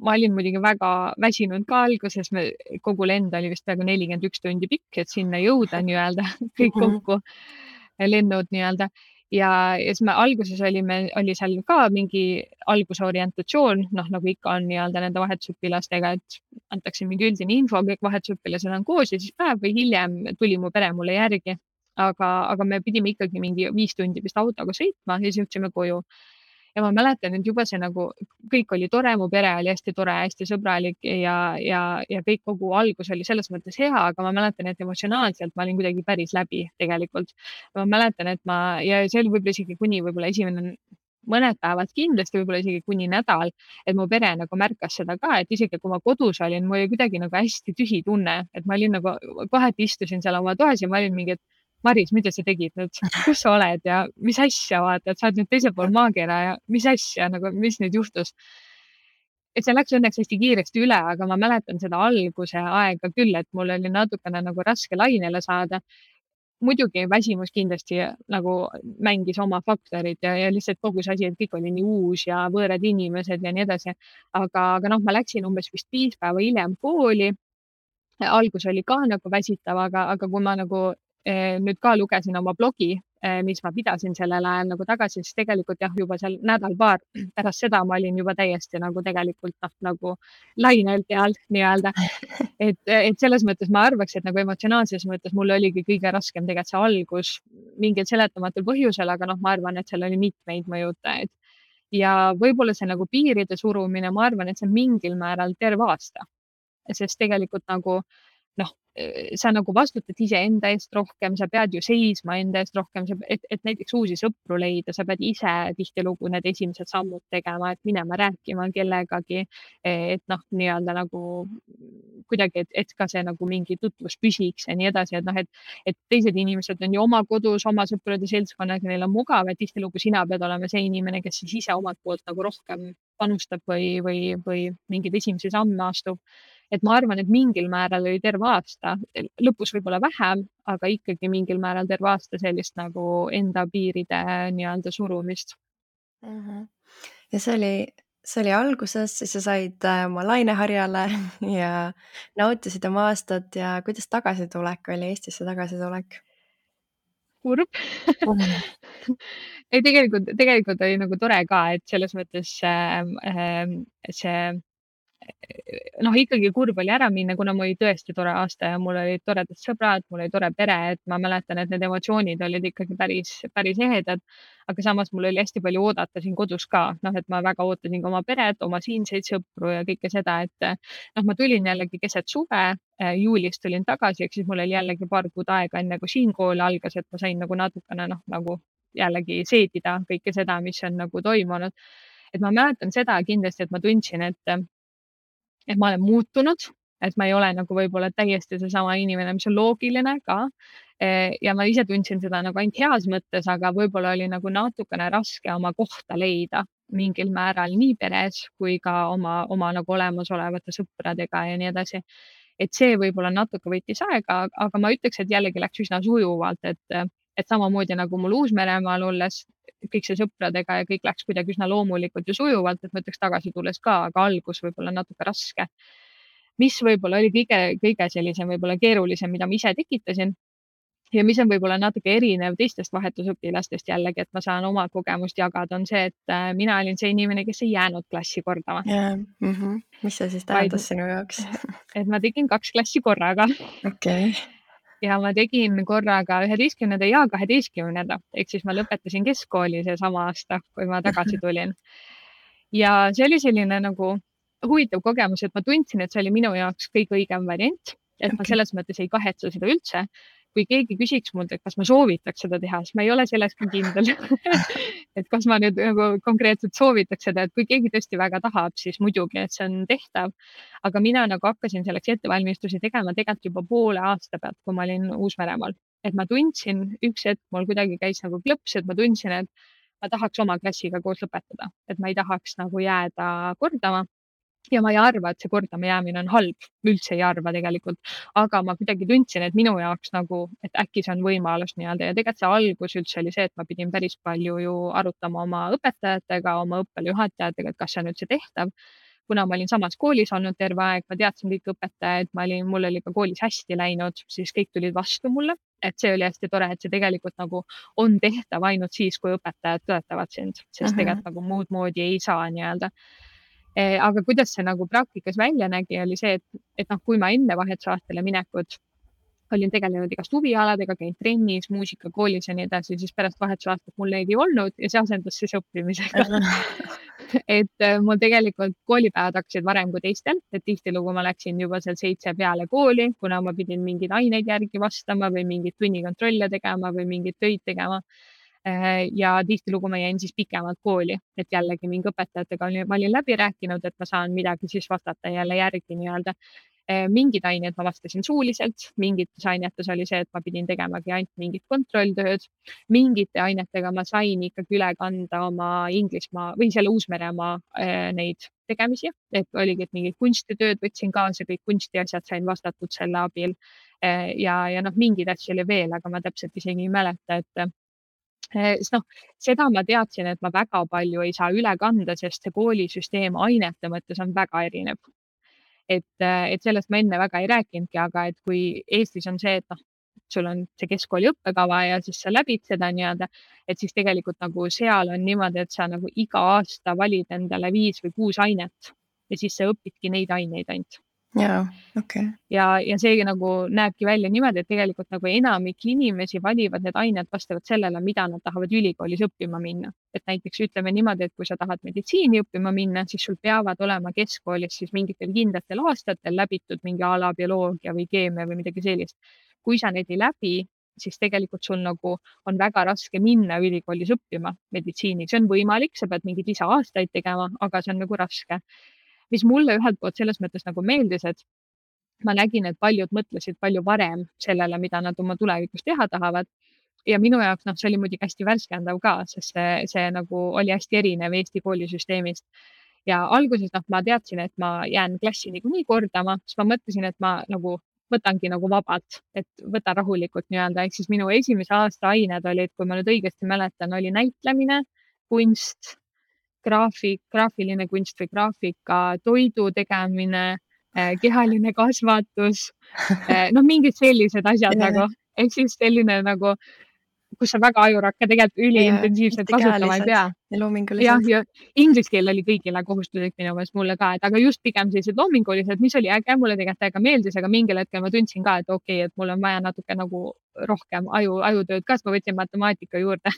ma olin muidugi väga väsinud ka alguses, kogu lend oli vist peaaegu 41 tundi pikk, et sinna jõuda nii-öelda kõik kokku lennud nii-öelda. Ja siis me alguses oli seal ka mingi algusorientatsioon, noh nagu ikka on nii-öelda nende vahetusõpilastega, et antakse mingi üldine info, kõik vahetusõpilased on koos ja siis päev või hiljem tuli mu pere mulle järgi. Aga me pidime ikkagi mingi 5 tundi vist autoga sõitma ja siis jõudsime koju. Ja ma mäletan, et juba see nagu kõik oli tore, mu pere oli hästi tore, hästi sõbralik ja kõik kogu algus oli selles mõttes hea, aga ma mäletan, et emotsionaalselt ma olin kuidagi päris läbi tegelikult. Ma mäletan, et ja see oli võib-olla isegi kuni võib-olla esimene mõned päevad kindlasti, võib-olla isegi kuni nädal, et mu pere nagu märkas seda ka, et isegi kui ma kodus olin, mul oli kuidagi nagu hästi tühi tunne, et ma olin nagu kohati istusin seal oma toas ja ma olin mingi, et Maris, mida sa tegid nüüd, kus sa oled ja mis asja vaata, et sa oled nüüd teisel pool maakera ja mis asja nagu, mis nüüd juhtus. Et see läks õnneks hästi kiiresti üle, aga ma mäletan seda alguse aega küll, et mul oli natukene nagu raske lainele saada. Muidugi väsimus kindlasti nagu mängis oma faktorid ja lihtsalt kogu see asi, et kõik oli nii uus ja võõrad inimesed ja nii edasi. Aga noh, ma läksin umbes vist 5 päeva hiljem kooli. Algus oli ka nagu väsitav, aga kui ma nagu nüüd ka lugesin oma blogi, mis ma pidasin sellel ajal nagu tagasi, siis tegelikult jah, juba seal nädal-paar pärast seda ma olin juba täiesti nagu tegelikult nagu lainel peal nii-öelda. Et selles mõttes ma arvaks, et nagu emotsionaalses mõttes mul oligi kõige raskem tegelikult see algus mingil seletamatul põhjusel, aga noh, ma arvan, et seal oli mitmeid mõjutajaid. Ja võib-olla see nagu piiride surumine, ma arvan, et see on mingil määral terve aasta, sest tegelikult nagu noh, sa nagu vastutad iseenda eest rohkem, sa pead ju seisma enda eest rohkem, et näiteks uusi sõpru leida, sa pead ise tihtilugu need esimesed sammud tegema, et minema rääkima kellegagi, et noh, nii-öelda nagu kuidagi, et ka see nagu mingi tutvus püsiks ja nii edasi, et noh, et teised inimesed on ju oma kodus, oma sõprade seltskonnaga, neil on mugav, et tihtilugu sina pead olema see inimene, kes siis ise omalt poolt nagu rohkem panustab või mingeid esimesi samme astub. Et ma arvan, et mingil määral oli terve aasta, lõpus võib-olla vähem, aga ikkagi mingil määral terve aasta sellist nagu enda piiride nii-öelda surumist. Ja see oli alguses, siis sa said oma laineharjale ja nautisid oma aastat ja kuidas tagasitulek oli, Eestisse tagasitulek? Kurb. Ei, tegelikult oli nagu tore ka, et selles mõttes see noh, ikkagi kurb oli ära minna, kuna mul oli tõesti tore aasta ja mul olid toredad sõbrad, mul oli tore pere, et ma mäletan, et need emotsioonid olid ikkagi päris ehedad. Aga samas mul oli hästi palju oodata siin kodus ka, noh, et ma väga ootasin ka oma peret, oma siinseid sõpru ja kõike seda, et noh, ma tulin jällegi keset suve, juulis tulin tagasi, ehk siis mul oli jällegi paar kuud aega enne, kui siin kool algas, et ma sain nagu natukene noh, nagu jällegi seedida kõike seda, mis on nagu toimunud. Et ma mäletan seda kindlasti, et ma tundsin, et ma olen muutunud, et ma ei ole nagu võib-olla täiesti seesama inimene, mis on loogiline ka. Ja ma ise tundsin seda nagu ainult heas mõttes, aga võib-olla oli nagu natukene raske oma kohta leida mingil määral nii peres kui ka oma nagu olemasolevate sõpradega ja nii edasi. Et see võib-olla natuke võttis aega, aga ma ütleks, et jällegi läks üsna sujuvalt, et samamoodi nagu mul Uus-Meremaal olles kõik see sõpradega ja kõik läks kuidagi üsna loomulikult ja sujuvalt, et ma ütleks tagasi tulles ka, aga algus võib-olla natuke raske. Mis võib-olla oli kõige sellisem võib-olla keerulisem, mida ma ise tekitasin ja mis on võib-olla natuke erinev teistest vahetusõpilastest jällegi, et ma saan oma kogemust jagada, on see, et mina olin see inimene, kes ei jäänud klassi kordama. Mis see siis tähendas sinu jaoks? Et ma tegin 2 klassi korraga. Okei. Ja ma tegin korraga 11. ja 12. Ehk siis ma lõpetasin keskkooli seesama aasta, kui ma tagasi tulin. Ja see oli selline nagu huvitav kogemus, et ma tundsin, et see oli minu jaoks kõige õigem variant, et ma selles mõttes ei kahetse seda üldse. Kui keegi küsiks mult, et kas ma soovitaks seda teha, siis ma ei ole selles ka kindel. Et kas ma nüüd nagu konkreetselt soovitaks seda, et kui keegi tõesti väga tahab, siis muidugi, et see on tehtav. Aga mina nagu hakkasin selleks ettevalmistusi tegema tegelikult juba poole aasta pealt, kui ma olin Uus-Meremaal. Et ma tundsin, üks hetk mul kuidagi käis nagu klõps, et ma tundsin, et ma tahaks oma klassiga koos lõpetada, et ma ei tahaks nagu jääda kordama. Ja ma ei arva, et see kordama jäämine on halb, üldse ei arva tegelikult, aga ma kuidagi tundsin, et minu jaoks nagu, et äkki see on võimalus nii-öelda ja tegelikult see algus üldse oli see, et ma pidin päris palju ju arutama oma õpetajatega, oma õppejuhatajatega, et kas see on üldse tehtav. Kuna ma olin samas koolis olnud terve aeg, ma teadsin kõik õpetajaid, mul oli ka koolis hästi läinud, siis kõik tulid vastu mulle, et see oli hästi tore, et see tegelikult nagu on tehtav ainult siis, kui õpetajad toetavad sind, sest tegelikult nagu muud moodi ei saa nii-öelda. Aga kuidas see nagu praktikas välja nägi, oli see, et noh, kui ma enne vahetusaastale minekut olin tegelenud igast huvialadega, käinud trennis, muusikakoolis ja nii edasi, siis pärast vahetusaastat mul neid ei olnud ja see asendus siis õppimisega. Et mul tegelikult koolipäevad hakkasid varem kui teistel, et tihtilugu ma läksin juba seal 7 peale kooli, kuna ma pidin mingeid aineid järgi vastama või mingeid tunnikontrolle tegema või mingeid töid tegema. Ja tihtilugu ma jäin siis pikemalt kooli, et jällegi mingi õpetajatega ma olin läbi rääkinud, et ma saan midagi siis vastata jälle järgi nii-öelda. Mingid ained ma vastasin suuliselt, mingites ainetes oli see, et ma pidin tegemagi ainult mingit kontrolltööd. Mingite ainetega ma sain ikkagi üle kanda oma Inglismaa või selle Uus-Meremaa neid tegemisi, et oligi, et mingid kunstitööd võtsin kaasa, kõik kunstiasjad sain vastatud selle abil. Ja noh, mingeid asju oli veel, aga ma täpselt isegi ei mäleta, et sest noh, seda ma teadsin, et ma väga palju ei saa üle kanda, sest see koolisüsteem ainete mõttes on väga erinev. Et sellest ma enne väga ei rääkinudki, aga et kui Eestis on see, et noh, sul on see keskkooli õppekava ja siis sa läbid seda nii-öelda, et siis tegelikult nagu seal on niimoodi, et sa nagu iga aasta valid endale 5 või 6 ainet ja siis sa õpidki neid aineid ainult. jaa, okei. Ja see nagu näebki välja niimoodi, et tegelikult nagu enamik inimesi valivad need ained vastavalt sellele, mida nad tahavad ülikoolis õppima minna. Et näiteks ütleme niimoodi, et kui sa tahad meditsiini õppima minna, siis sul peavad olema keskkoolis siis mingitel kindlatel aastatel läbitud mingi ala bioloogia või keemia või midagi sellist. Kui sa neid ei läbi, siis tegelikult sul nagu on väga raske minna ülikoolis õppima meditsiini. See on võimalik, sa pead mingeid lisa-aastaid tegema, aga see on nagu raske. Mis mulle ühelt poolt selles mõttes nagu meeldis, et ma nägin, et paljud mõtlesid palju varem sellele, mida nad oma tulevikus teha tahavad. Ja minu jaoks see oli muidugi hästi värskendav ka, sest see nagu oli hästi erinev Eesti koolisüsteemist. Ja alguses ma teadsin, et ma jään klassi niikuinii kordama, siis ma mõtlesin, et ma nagu võtangi nagu vabalt, et võtan rahulikult nii-öelda. Ehk siis minu esimese aasta ained olid, kui ma nüüd õigesti mäletan, oli näitlemine, kunst, graafiline kunst või graafika, toidu tegemine, kehaline kasvatus, mingid sellised asjad nagu, ehk siis selline nagu, kus sa väga ajurakka tegelikult üliintensiivselt kasutama ei pea. Ja loomingulised. Ja inglise keel oli kõigile kohustuslik minu meelest mulle ka, et aga just pigem sellised loomingulised, mis oli äge, mulle tegelikult väga meeldis, aga mingil hetkel ma tundsin ka, et okei, et mul on vaja natuke nagu rohkem ajutööd ka, siis ma võtsin matemaatika juurde.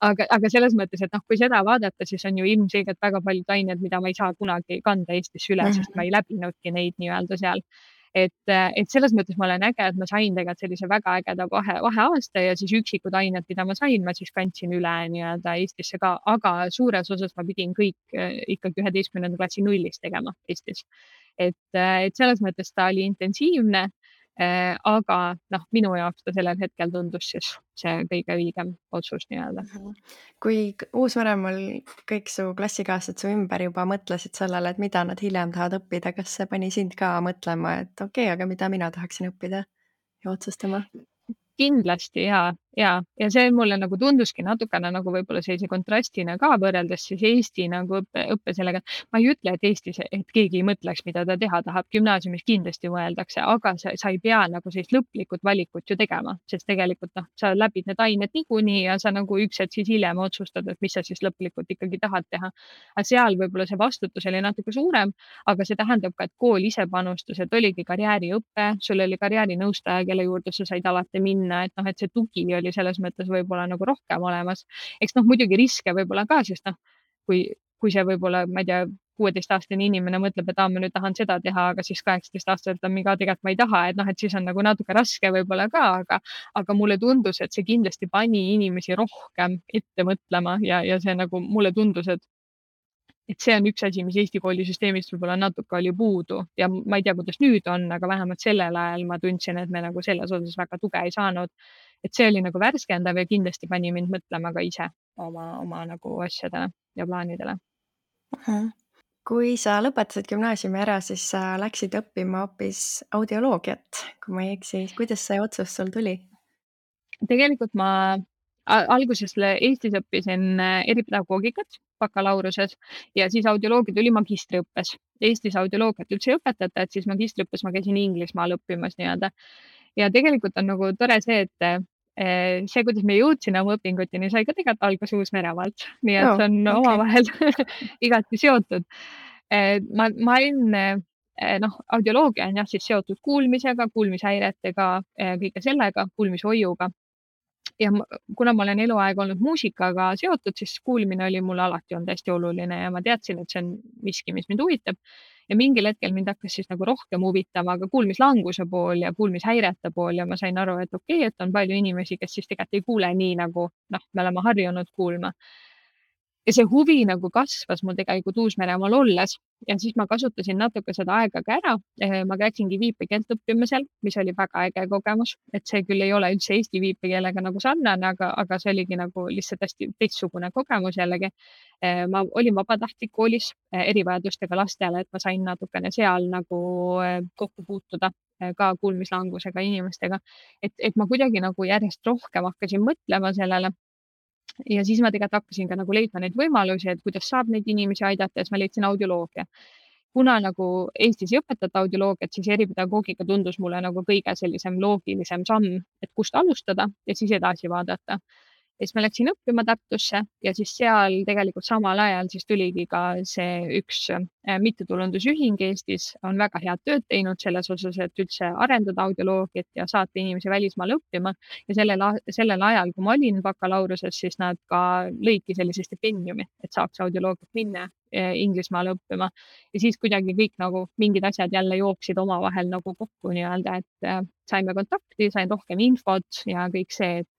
Aga selles mõttes, et kui seda vaadata, siis on ju ilmselgelt väga paljud ained, mida ma ei saa kunagi kanda Eestisse üle, sest ma ei läbinudki neid nii-öelda seal. Et selles mõttes ma olen äge, et ma sain tegelikult sellise väga ägeda vaheaasta ja siis üksikud ained, mida ma sain, ma siis kandsin üle nii-öelda Eestisse ka, aga suures osas ma pidin kõik ikkagi 11. klassi nullist tegema Eestis. Et selles mõttes ta oli intensiivne, aga minu jaoks ta sellel hetkel tundus siis see kõige õigem otsus nii-öelda. Kui uusvanemal kõik su klassikaaslased su ümber juba mõtlesid sellele, et mida nad hiljem tahavad õppida, kas see pani sind ka mõtlema, et okei, aga mida mina tahaksin õppida ja otsustama? Kindlasti ja see mulle nagu tunduski natukene nagu võib-olla sellise kontrastina ka võrreldes siis Eesti nagu õppe sellega. Ma ei ütle, et Eestis, et keegi ei mõtleks, mida ta teha tahab. Gümnaasiumis kindlasti mõeldakse, aga sa ei pea nagu sellist lõplikult valikut ju tegema, sest tegelikult sa läbid need ained niikuinii ja sa nagu üks hetk siis hiljem otsustad, et mis sa siis lõplikult ikkagi tahad teha. Aga seal võib-olla see vastutus oli natuke suurem, aga see tähendab ka, et kool ise panustas, et oligi karjääriõpe, sul oli karjäärinõustaja, kelle juurde sa said alati minna, et see tugi oli selles mõttes võib-olla nagu rohkem olemas. Eks muidugi riske võib-olla ka, sest kui see võib-olla, ma ei tea, 16-aastane inimene mõtleb, et ma nüüd tahan seda teha, aga siis 18-aastaselt on mingi, tegelikult ma ei taha, et siis on nagu natuke raske võib-olla ka, aga mulle tundus, et see kindlasti pani inimesi rohkem ette mõtlema ja see nagu mulle tundus, et see on üks asi, mis Eesti koolisüsteemist võib-olla natuke oli puudu ja ma ei tea, kuidas nüüd on, aga vähemalt sellel ajal ma tundsin, et me nagu selles osas väga tuge ei saanud. Et see oli nagu värskendav ja kindlasti pani mind mõtlema ka ise oma nagu asjadele ja plaanidele. Kui sa lõpetasid gümnaasiumi ära, siis sa läksid õppima hoopis audioloogiat, kui ma ei eksi. Kuidas see otsus sul tuli? Tegelikult ma alguses Eestis õppisin eripedagoogikat bakalaureuse ja siis audioloogia tuli magistriõppes. Eestis audioloogiat üldse ei õpetata, et siis magistriõppes ma käisin Inglismaal õppimas nii-öelda. Ja tegelikult on nagu tore see, et see, kuidas me jõudsime oma õpinguteni, sai ka tegelikult alguse Uus-Meremaalt. Nii et see on omavahel igati seotud. Ma olin, audioloogia on jah siis seotud kuulmisega, kuulmishäiretega, kõige sellega, kuulmishoiuga. Ja kuna ma olen eluaeg olnud muusikaga seotud, siis kuulmine oli mulle alati olnud hästi oluline ja ma teadsin, et see on miski, mis mind huvitab. Ja mingil hetkel mind hakkas siis nagu rohkem huvitama ka kuulmislanguse pool ja kuulmishäirete pool ja ma sain aru, et okei, et on palju inimesi, kes siis tegelikult ei kuule nii nagu me oleme harjunud kuulma. Ja see huvi nagu kasvas mul tegelikult Uus-Meremaal olles ja siis ma kasutasin natuke seda aega ka ära. Ma läksingi viipekeelt õppima seal, mis oli väga äge kogemus, et see küll ei ole üldse eesti viipekeelega nagu sarnane, aga see oligi nagu lihtsalt hästi teistsugune kogemus jällegi. Ma olin vabatahtlik koolis erivajadustega lastele, et ma sain natukene seal nagu kokku puutuda ka kuulmislangusega inimestega. Et ma kuidagi nagu järjest rohkem hakkasin mõtlema sellele. Ja siis ma tegelikult hakkasin ka nagu leidma neid võimalusi, et kuidas saab neid inimesi aidata ja siis ma leidsin audioloogia. kuna nagu Eestis ei õpetata audioloogiat, siis eripedagoogika tundus mulle nagu kõige sellisem loogilisem samm, et kust alustada ja siis edasi vaadata. Ja siis ma läksin õppima Tartusse ja siis seal tegelikult samal ajal siis tuligi ka see üks mittetulundusühing Eestis on väga head tööd teinud selles osas, et üldse arendada audioloogiat ja saata inimesi välismaale õppima. Ja sellel ajal, kui ma olin bakalaureuse, siis nad ka lõidki sellise stipendiumi, et saaks audioloogiat minna Inglismaale õppima. Ja siis kuidagi kõik nagu mingid asjad jälle jooksid omavahel nagu kokku nii-öelda, et saime kontakti, sain rohkem infot ja kõik see, et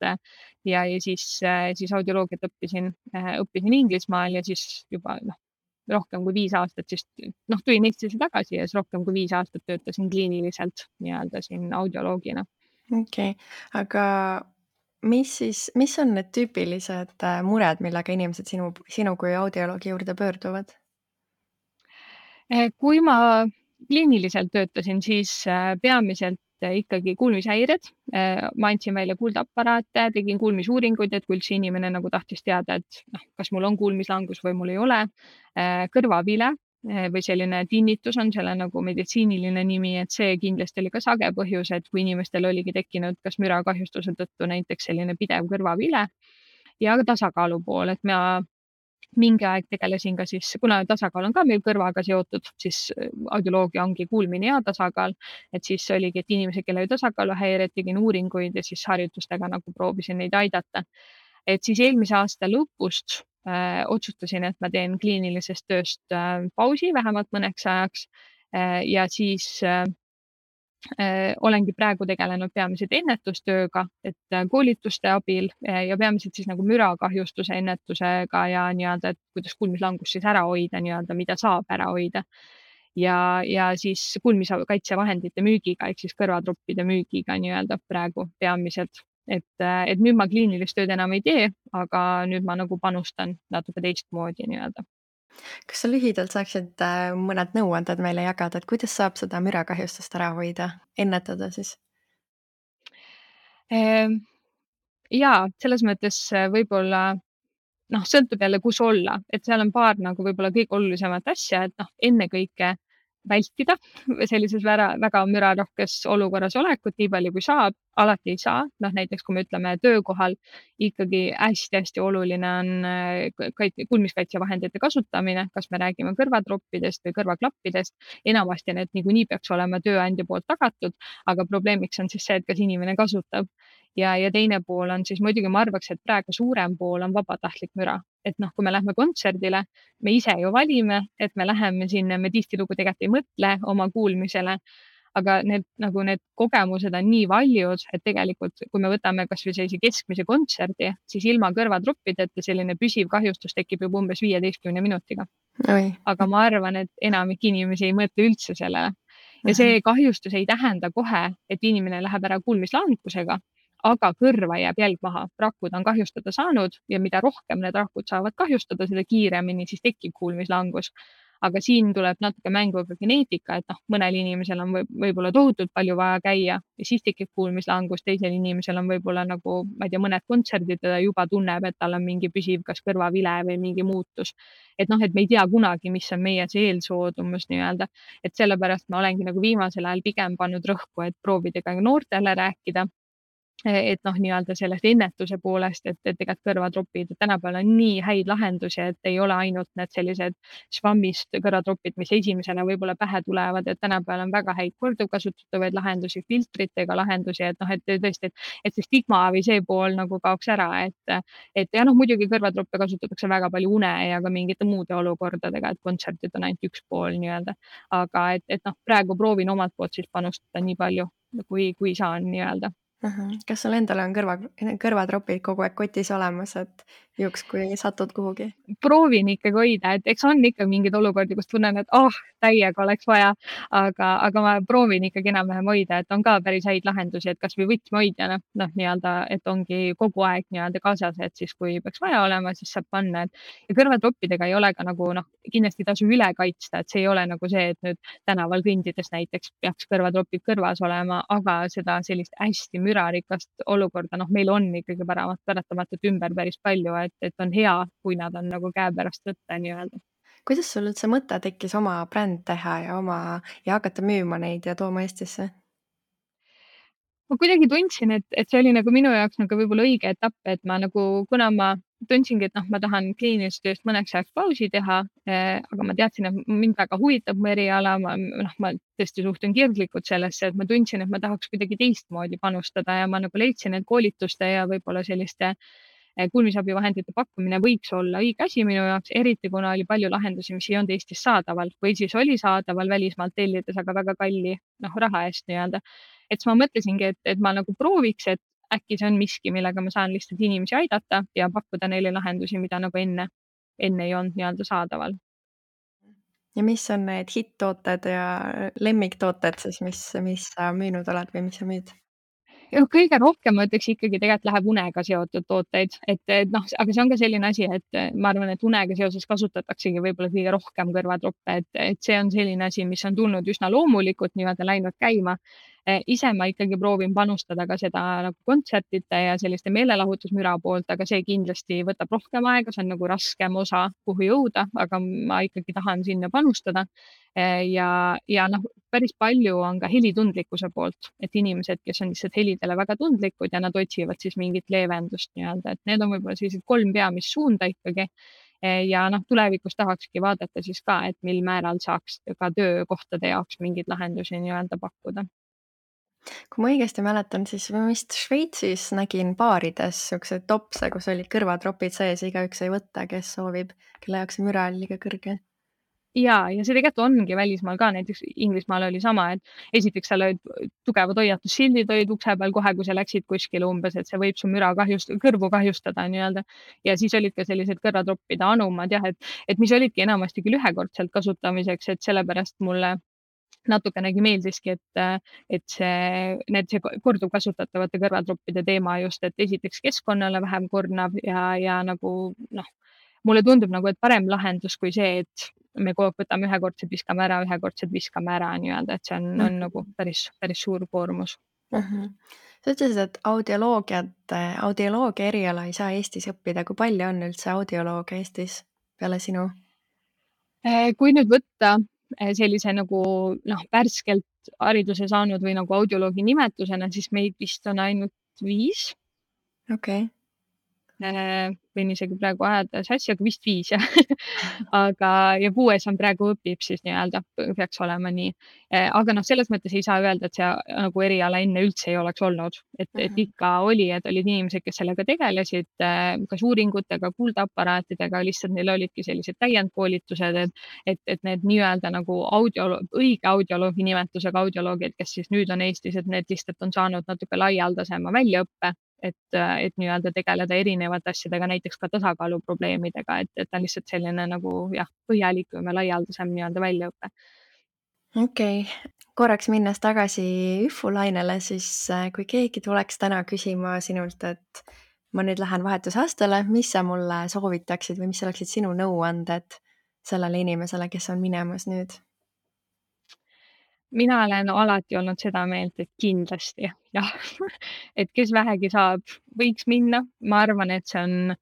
ja siis audioloogiat õppisin Inglismaal ja siis juba rohkem kui 5 aastat, siis tulin Eestisse tagasi ja siis rohkem kui 5 aastat töötasin kliiniliselt nii-öelda siin audioloogina. Okei, aga mis on need tüüpilised mured, millega inimesed sinu kui audioloogi juurde pöörduvad? Kui ma kliiniliselt töötasin, siis peamiselt ikkagi kuulmishäired. Ma andsin välja kuuldeaparaate, tegin kuulmisuuringuid, et kui üldse inimene nagu tahtis teada, et kas mul on kuulmislangus või mul ei ole. Kõrvavile või selline tinnitus on selle nagu meditsiiniline nimi, et see kindlasti oli ka sage põhjus, et kui inimestel oligi tekkinud kas mürakahjustuse tõttu näiteks selline pidev kõrvavile ja tasakaalu pool, et ma mingi aeg tegelesin ka siis, kuna tasakaal on ka meil kõrvaga seotud, siis audioloogia ongi kuulmine ja tasakaal, et siis oligi, et inimesed, kellel oli tasakaaluhäired, tegin uuringuid ja siis harjutustega nagu proovisin neid aidata. Et siis eelmise aasta lõpust otsustasin, et ma teen kliinilisest tööst pausi vähemalt mõneks ajaks ja siis olengi praegu tegelenud peamiselt ennetustööga, et koolituste abil ja peamiselt siis nagu mürakahjustuse ennetusega ja nii-öelda, et kuidas kuulmislangust siis ära hoida nii-öelda, mida saab ära hoida. Ja siis kuulmiskaitsevahendite müügiga ehk siis kõrvatroppide müügiga nii-öelda praegu peamiselt. Et nüüd ma kliinilist tööd enam ei tee, aga nüüd ma nagu panustan natuke teistmoodi nii-öelda. Kas sa lühidalt saaksid mõned nõuanded meile jagada, et kuidas saab seda mürakahjustust ära hoida, ennetada siis? Jaa, selles mõttes võib-olla sõltub jälle, kus olla, et seal on paar nagu võib-olla kõige olulisemat asja, et ennekõike vältida sellises väga mürarohkes olukorras olekut nii palju kui saab, alati ei saa. Näiteks kui me ütleme töökohal, ikkagi hästi-hästi oluline on kuulmiskaitsevahendite kasutamine, kas me räägime kõrvatroppidest või kõrvaklappidest. Enamasti need niikuinii peaks olema tööandja poolt tagatud, aga probleemiks on siis see, et kas inimene kasutab. Ja teine pool on siis muidugi, ma arvaks, et praegu suurem pool on vabatahtlik müra. Et kui me lähme kontserdile, me ise ju valime, et me läheme sinna, me tihtilugu tegelikult ei mõtle oma kuulmisele, aga need kogemused on nii valjud, et tegelikult, kui me võtame kas või sellise keskmise kontserdi, siis ilma kõrvatroppideta selline püsiv kahjustus tekib juba umbes 15 minutiga. Oi. Aga ma arvan, et enamik inimesi ei mõtle üldse sellele. Ja see kahjustus ei tähenda kohe, et inimene läheb ära kuulmislangusega, aga kõrva jääb jälg maha. Rakud on kahjustada saanud ja mida rohkem need rakud saavad kahjustada, seda kiiremini siis tekib kuulmislangus. Aga siin tuleb natuke mängu ka geneetika, et mõnel inimesel on võib-olla tohutult palju vaja käia ja siis tekib kuulmislangus, teisel inimesel on võib-olla nagu, ma ei tea, mõned kontserdid ja ta juba tunneb, et tal on mingi püsiv kas kõrvavile või mingi muutus. Et me ei tea kunagi, mis on meie see eelsoodumus nii-öelda, et sellepärast ma olengi nagu viimasel ajal pigem pannud rõhku, et proovida ka noortele rääkida. Et nii-öelda sellest ennetuse poolest, et tegelikult kõrvatropid, tänapäeval on nii häid lahendusi, et ei ole ainult need sellised švammist kõrvatropid, mis esimesena võib-olla pähe tulevad, et tänapäeval on väga häid korduvkasutatavaid lahendusi, filtritega lahendusi, et tõesti, et see stigma või see pool nagu kaoks ära, et ja muidugi kõrvatroppe kasutatakse väga palju une ja ka mingite muude olukordadega, et kontserdid on ainult üks pool nii-öelda. Aga et praegu proovin omalt poolt siis panustada nii palju, kui saan nii-öelda. Kas sul endal on kõrvatropid kogu aeg kotis olemas, et juhuks, kui satud kuhugi? Proovin ikkagi hoida, et eks on ikka mingeid olukordi, kus tunnen, et täiega oleks vaja, aga ma proovin ikkagi enam-vähem hoida, et on ka päris häid lahendusi, et kas või võtmehoidjana, nii-öelda, et ongi kogu aeg nii-öelda kaasas, et siis kui peaks vaja olema, siis saab panna. Ja kõrvatroppidega ei ole ka nagu kindlasti tasu üle kaitsta, et see ei ole nagu see, et nüüd tänaval kõndides näiteks peaks kõrvatropid kõrvas olema, aga seda sellist hästi mürarikast olukorda, meil on ikkagi paratamatult ümber päris palju, et on hea, kui nad on nagu käepärast võtta nii-öelda. kuidas sul üldse mõte tekkis oma bränd teha ja hakata müüma neid ja tooma Eestisse? Ma kuidagi tundsin, et see oli nagu minu jaoks nagu võib-olla õige etapp, et ma nagu, kuna ma tundsingi, et noh, ma tahan kliinilisest tööst mõneks ajaks pausi teha, aga ma teadsin, et mind väga huvitab mu eriala, ma tõesti suhtun kirglikult sellesse, et ma tundsin, et ma tahaks kuidagi teistmoodi panustada ja ma nagu leidsin, et koolituste ja võib-olla selliste kuulmisabivahendite pakkumine võiks olla õige asi minu jaoks, eriti kuna oli palju lahendusi, mis ei olnud Eestis saadaval või siis oli saadaval välismaalt tellides, aga väga kalli raha eest nii-öelda. Et siis ma mõtlesingi, et ma nagu prooviks, et äkki see on miski, millega ma saan lihtsalt inimesi aidata ja pakkuda neile lahendusi, mida nagu enne ei olnud nii-öelda saadaval. Ja mis on need hitt-tooted ja lemmiktooted siis, mis sa müünud oled või mis sa müüd? Ja kõige rohkem ma ütleks ikkagi tegelikult läheb unega seotud tooteid, et noh, aga see on ka selline asi, et ma arvan, et unega seoses kasutataksegi võib-olla kõige rohkem kõrvatroppe, et see on selline asi, mis on tulnud üsna loomulikult nii-öelda läinud käima. Ise ma ikkagi proovin panustada ka seda nagu kontsertide ja selliste meelelahutusmüra poolt, aga see kindlasti võtab rohkem aega, see on nagu raskem osa, kuhu jõuda, aga ma ikkagi tahan sinna panustada. Ja noh, päris palju on ka helitundlikkuse poolt, et inimesed, kes on lihtsalt helidele väga tundlikud ja nad otsivad siis mingit leevendust nii-öelda, et need on võib-olla sellised 3 peamist suunda ikkagi. Ja noh, tulevikus tahakski vaadata siis ka, et mil määral saaks ka töökohtade jaoks mingeid lahendusi nii-öelda pakkuda. Kui ma õigesti mäletan, siis ma vist Šveitsis nägin baarides siukseid topse, kus olid kõrvatropid sees ja igaüks sai võtta, kes soovib, kelle jaoks see müra oli liiga kõrge. Ja see tegelikult ongi välismaal ka, näiteks Inglismaal oli sama, et esiteks seal olid tugevad hoiatussildid olid ukse peal kohe, kui sa läksid kuskile umbes, et see võib su kõrvu kahjustada nii-öelda. Ja siis olid ka sellised kõrvatroppide anumad jah, et mis olidki enamasti küll ühekordselt kasutamiseks, et sellepärast mulle natukenegi meeldiski, et see korduvkasutatavate kõrvatroppide teema just, et esiteks keskkonnale vähem kornav ja nagu noh, mulle tundub nagu, et parem lahendus kui see, et me kogu aeg võtame ühekordsed viskame ära nii-öelda, et see on nagu päris suur koormus. Sa ütlesid, et audioloogia eriala ei saa Eestis õppida. Kui palju on üldse audiolooge Eestis peale sinu? Kui nüüd võtta sellise nagu värskelt hariduse saanud või nagu audioloogi nimetusena, siis meid vist on ainult 5. Okei. Võin isegi praegu ajada sassi, aga vist 5 jah. Aga ja 6 on praegu õpib siis nii-öelda, peaks olema nii. Aga noh, selles mõttes ei saa öelda, et see nagu eriala enne üldse ei oleks olnud, et ikka oli, et olid inimesed, kes sellega tegelesid, kas uuringutega, kuuldeaparaatidega, lihtsalt neil olidki sellised täiendkoolitused, et need nii-öelda nagu õige audioloogi nimetusega audioloogid, kes siis nüüd on Eestis, et need lihtsalt on saanud natuke laialdasema väljaõppe, et nii-öelda tegeleda erinevate asjadega, näiteks ka tasakaaluprobleemidega, et ta on lihtsalt selline nagu jah, põhjalikum ja laialdasem nii-öelda väljaõpe. Okei. Korraks minnes tagasi Üfu lainele, siis kui keegi tuleks täna küsima sinult, et ma nüüd lähen vahetusastele, mis sa mulle soovitaksid või mis oleksid sinu nõuanded sellele inimesele, kes on minemas nüüd? Mina olen alati olnud seda meelt, et kindlasti jah, et kes vähegi saab, võiks minna. Ma arvan, et see on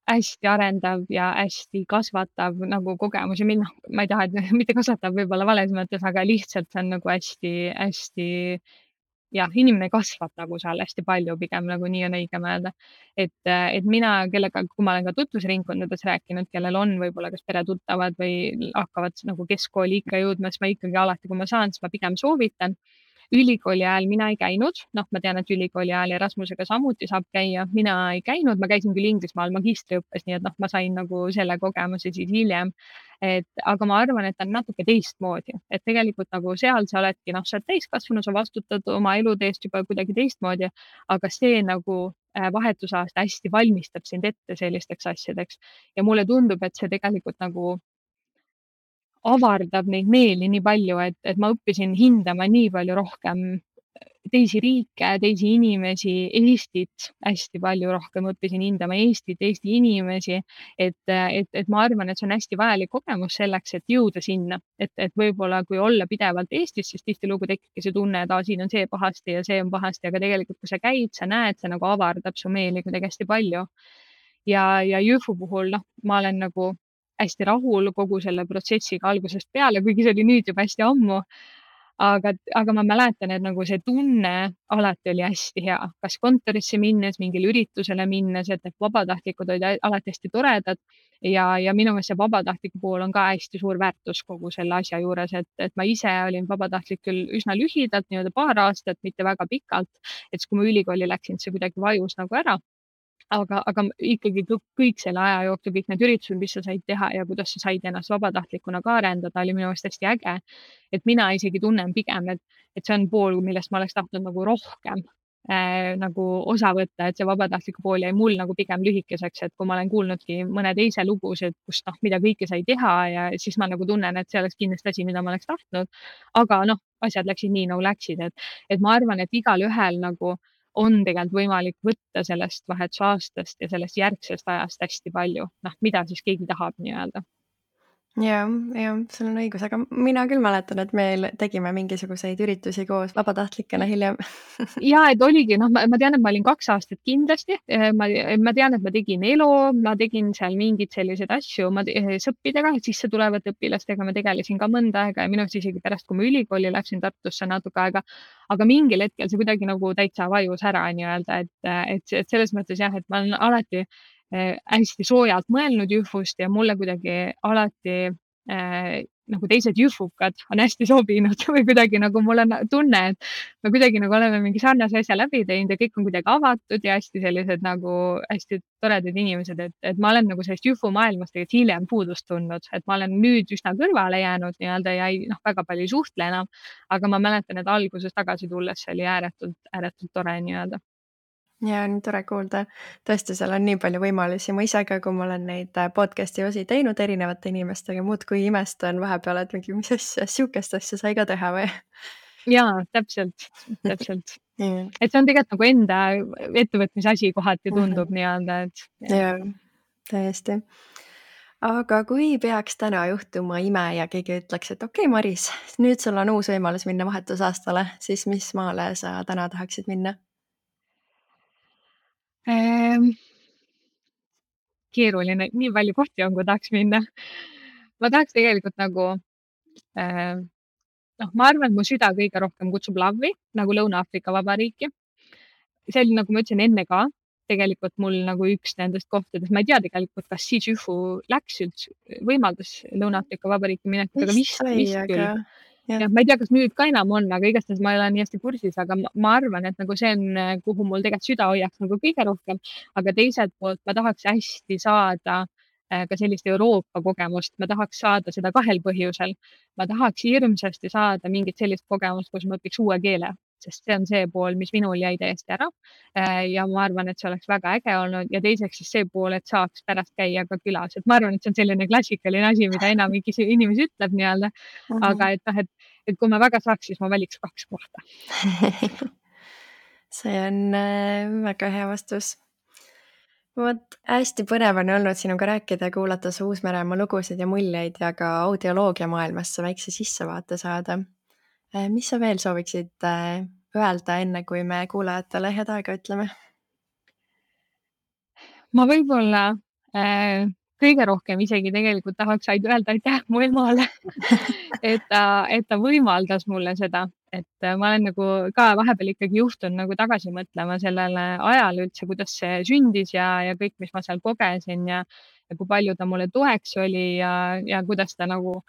hästi arendav ja hästi kasvatav nagu kogemus ja noh, ma ei taha, et mitte kasvatav võib-olla vales mõttes, aga lihtsalt see on nagu hästi-hästi jah, inimene kasvab nagu seal hästi palju, pigem nagu nii on õigem öelda. Et mina, kui ma olen ka tutvusringkondades rääkinud, kellel on võib-olla kas peretuttavad või hakkavad nagu keskkooli ikka jõudma, siis ma ikkagi alati, kui ma saan, siis ma pigem soovitan. Ülikooli ajal mina ei käinud, noh, ma tean, et ülikooli ajal Erasmusega samuti saab käia, mina ei käinud, ma käisin küll Inglismaal magistriõppes, nii et noh, ma sain nagu selle kogemuse siis hiljem. Aga ma arvan, et ta on natuke teistmoodi, et tegelikult nagu seal sa oledki, noh, sa oled täiskasvanu, sa vastutad oma elude eest juba kuidagi teistmoodi, aga see nagu vahetusaasta hästi valmistab sind ette sellisteks asjadeks ja mulle tundub, et see tegelikult nagu avardab neid meeli nii palju, et ma õppisin hindama nii palju rohkem teisi riike, teisi inimesi, Eestit hästi palju rohkem õppisin hindama Eestit, Eesti inimesi. Et ma arvan, et see on hästi vajalik kogemus selleks, et jõuda sinna, et võib-olla kui olla pidevalt Eestis, siis tihtilugu tekibki see tunne, et siin on see pahasti ja see on pahasti, aga tegelikult, kui sa käid, sa näed, see nagu avardab su meeli kuidagi hästi palju. Ja Jõhvu puhul, noh, ma olen nagu hästi rahul kogu selle protsessiga algusest peale, kuigi see oli nüüd juba hästi ammu. aga ma mäletan, et nagu see tunne alati oli hästi hea, kas kontorisse minnes, mingile üritusele minnes, et need vabatahtlikud olid alati hästi toredad ja minu meelest see vabatahtliku pool on ka hästi suur väärtus kogu selle asja juures, et ma ise olin vabatahtlik küll üsna lühidalt, nii-öelda paar aastat, mitte väga pikalt, et siis, kui ma ülikooli läksin, see kuidagi vajus nagu ära. aga ikkagi kõik selle aja jooksul, kõik need üritused, mis sa said teha ja kuidas sa said ennast vabatahtlikuna ka arendada, oli minu meelest hästi äge. et mina isegi tunnen pigem, et see on pool, millest ma oleks tahtnud nagu rohkem nagu osa võtta, et see vabatahtliku pool jäi mul nagu pigem lühikeseks, et kui ma olen kuulnudki mõne teise lugusid, kus noh, mida kõike sai teha ja siis ma nagu tunnen, et see oleks kindlasti asi, mida ma oleks tahtnud. aga noh, asjad läksid nii nagu läksid, et ma arvan, et igalühel nagu on tegelikult võimalik võtta sellest vahetusaastast ja sellest järgsest ajast hästi palju, noh, mida siis keegi tahab nii-öelda. Jah, sul on õigus, aga mina küll mäletan, et me tegime mingisuguseid üritusi koos vabatahtlikena hiljem. ja et oligi, noh, ma tean, et ma olin 2 aastat kindlasti, ma tean, et ma tegin ELO, ma tegin seal mingeid selliseid asju, sõppidega, sisse tulevate õpilastega ma tegelesin ka mõnda aega ja minu arust isegi pärast, kui ma ülikooli läksin Tartusse natuke aega, aga mingil hetkel see kuidagi nagu täitsa vajus ära nii-öelda, et selles mõttes jah, et ma olen alati hästi soojalt mõelnud Jühvust ja mulle kuidagi alati nagu teised jühvukad on hästi sobinud või kuidagi nagu mul on tunne, et me kuidagi nagu oleme mingi sarnase asja läbi teinud ja kõik on kuidagi avatud ja hästi sellised nagu hästi toredad inimesed, et ma olen nagu sellest Jühvu maailmast tegelikult hiljem puudust tundnud, et ma olen nüüd üsna kõrvale jäänud nii-öelda ja ei, noh, väga palju ei suhtle enam, aga ma mäletan, et alguses tagasi tulles see oli ääretult tore nii-öelda. Ja nii tore kuulda. Tõesti, seal on nii palju võimalusi. Ma ise ka, kui ma olen neid podcast'i osi teinud erinevate inimestega, muudkui imestan vahepeal, et mingi, mis asja, sihukest asja sai ka teha või? Jaa, täpselt. Et see on tegelikult nagu enda ettevõtmise asi kohati tundub nii-öelda, et. Jaa, täiesti. Aga kui peaks täna juhtuma ime ja keegi ütleks, et okei, Maris, nüüd sul on uus võimalus minna vahetusaastale, siis mis maale sa täna tahaksid minna? Keeruline, nii palju kohti on, kui tahaks minna. Ma tahaks tegelikult nagu, noh, ma arvan, et mu süda kõige rohkem kutsub Lavi, nagu Lõuna-Aafrika Vabariiki. See oli, nagu ma ütlesin enne ka, tegelikult mul nagu üks nendest kohtadest, ma ei tea tegelikult, kas siis Jühvu läks üldse, võimaldas Lõuna-Aafrika Vabariiki minekut, aga vist küll. Ja ma ei tea, kas nüüd ka enam on, aga igastahes ma ei ole nii hästi kursis, aga ma arvan, et nagu see on, kuhu mul tegelikult süda hoiaks nagu kõige rohkem, aga teiselt poolt ma tahaks hästi saada ka sellist Euroopa kogemust, ma tahaks saada seda 2 põhjusel. Ma tahaks hirmsasti saada mingit sellist kogemust, kus ma õpiks uue keele, sest see on see pool, mis minul jäi täiesti ära. Ja ma arvan, et see oleks väga äge olnud ja teiseks siis see pool, et saaks pärast käia ka külas, et ma arvan, et see on selline klassikaline asi, mida enamik inimesi ütleb nii-öelda, aga et noh, et kui ma väga saaks, siis ma valiks 2 kohta. See on väga hea vastus. Vot hästi põnev on olnud sinuga rääkida ja kuulata su Uus-Meremaa lugusid ja muljeid ja ka audioloogia maailmasse väikse sissevaate saada. Mis sa veel sooviksid öelda, enne kui me kuulajatele head aega ütleme? Ma võib-olla kõige rohkem isegi tegelikult tahaks ainult öelda aitäh mu emale, et ta võimaldas mulle seda, et ma olen nagu ka vahepeal ikkagi juhtunud nagu tagasi mõtlema sellele ajale üldse, kuidas see sündis ja kõik, mis ma seal kogesin ja kui palju ta mulle toeks oli ja kuidas ta nagu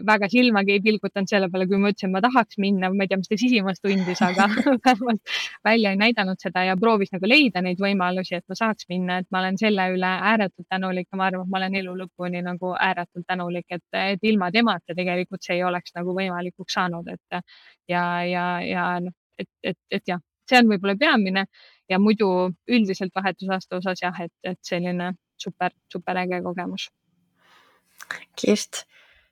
väga silmagi ei pilgutanud selle peale, kui ma ütlesin, ma tahaks minna, ma ei tea, mis ta sisimas tundis, aga vähemalt välja ei näidanud seda ja proovis nagu leida neid võimalusi, et ma saaks minna, et ma olen selle üle ääretult tänulik ja ma arvan, et ma olen elu lõpuni nagu ääretult tänulik, et ilma temata tegelikult see ei oleks nagu võimalikuks saanud, et ja noh, et jah, see on võib-olla peamine ja muidu üldiselt vahetusaasta osas jah, et selline super äge kogemus. Kirst,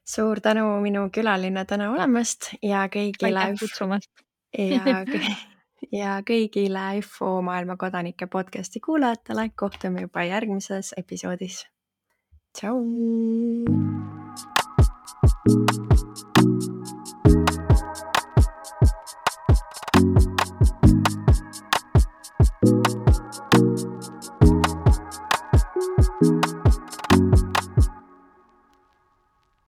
suur tänu minu külaline täna olemast ja kõigile Aitäh kutsumast. ja kõigile Infomaailma kodanike podcasti kuulajatele. Kohtume juba järgmises episoodis. Tšau!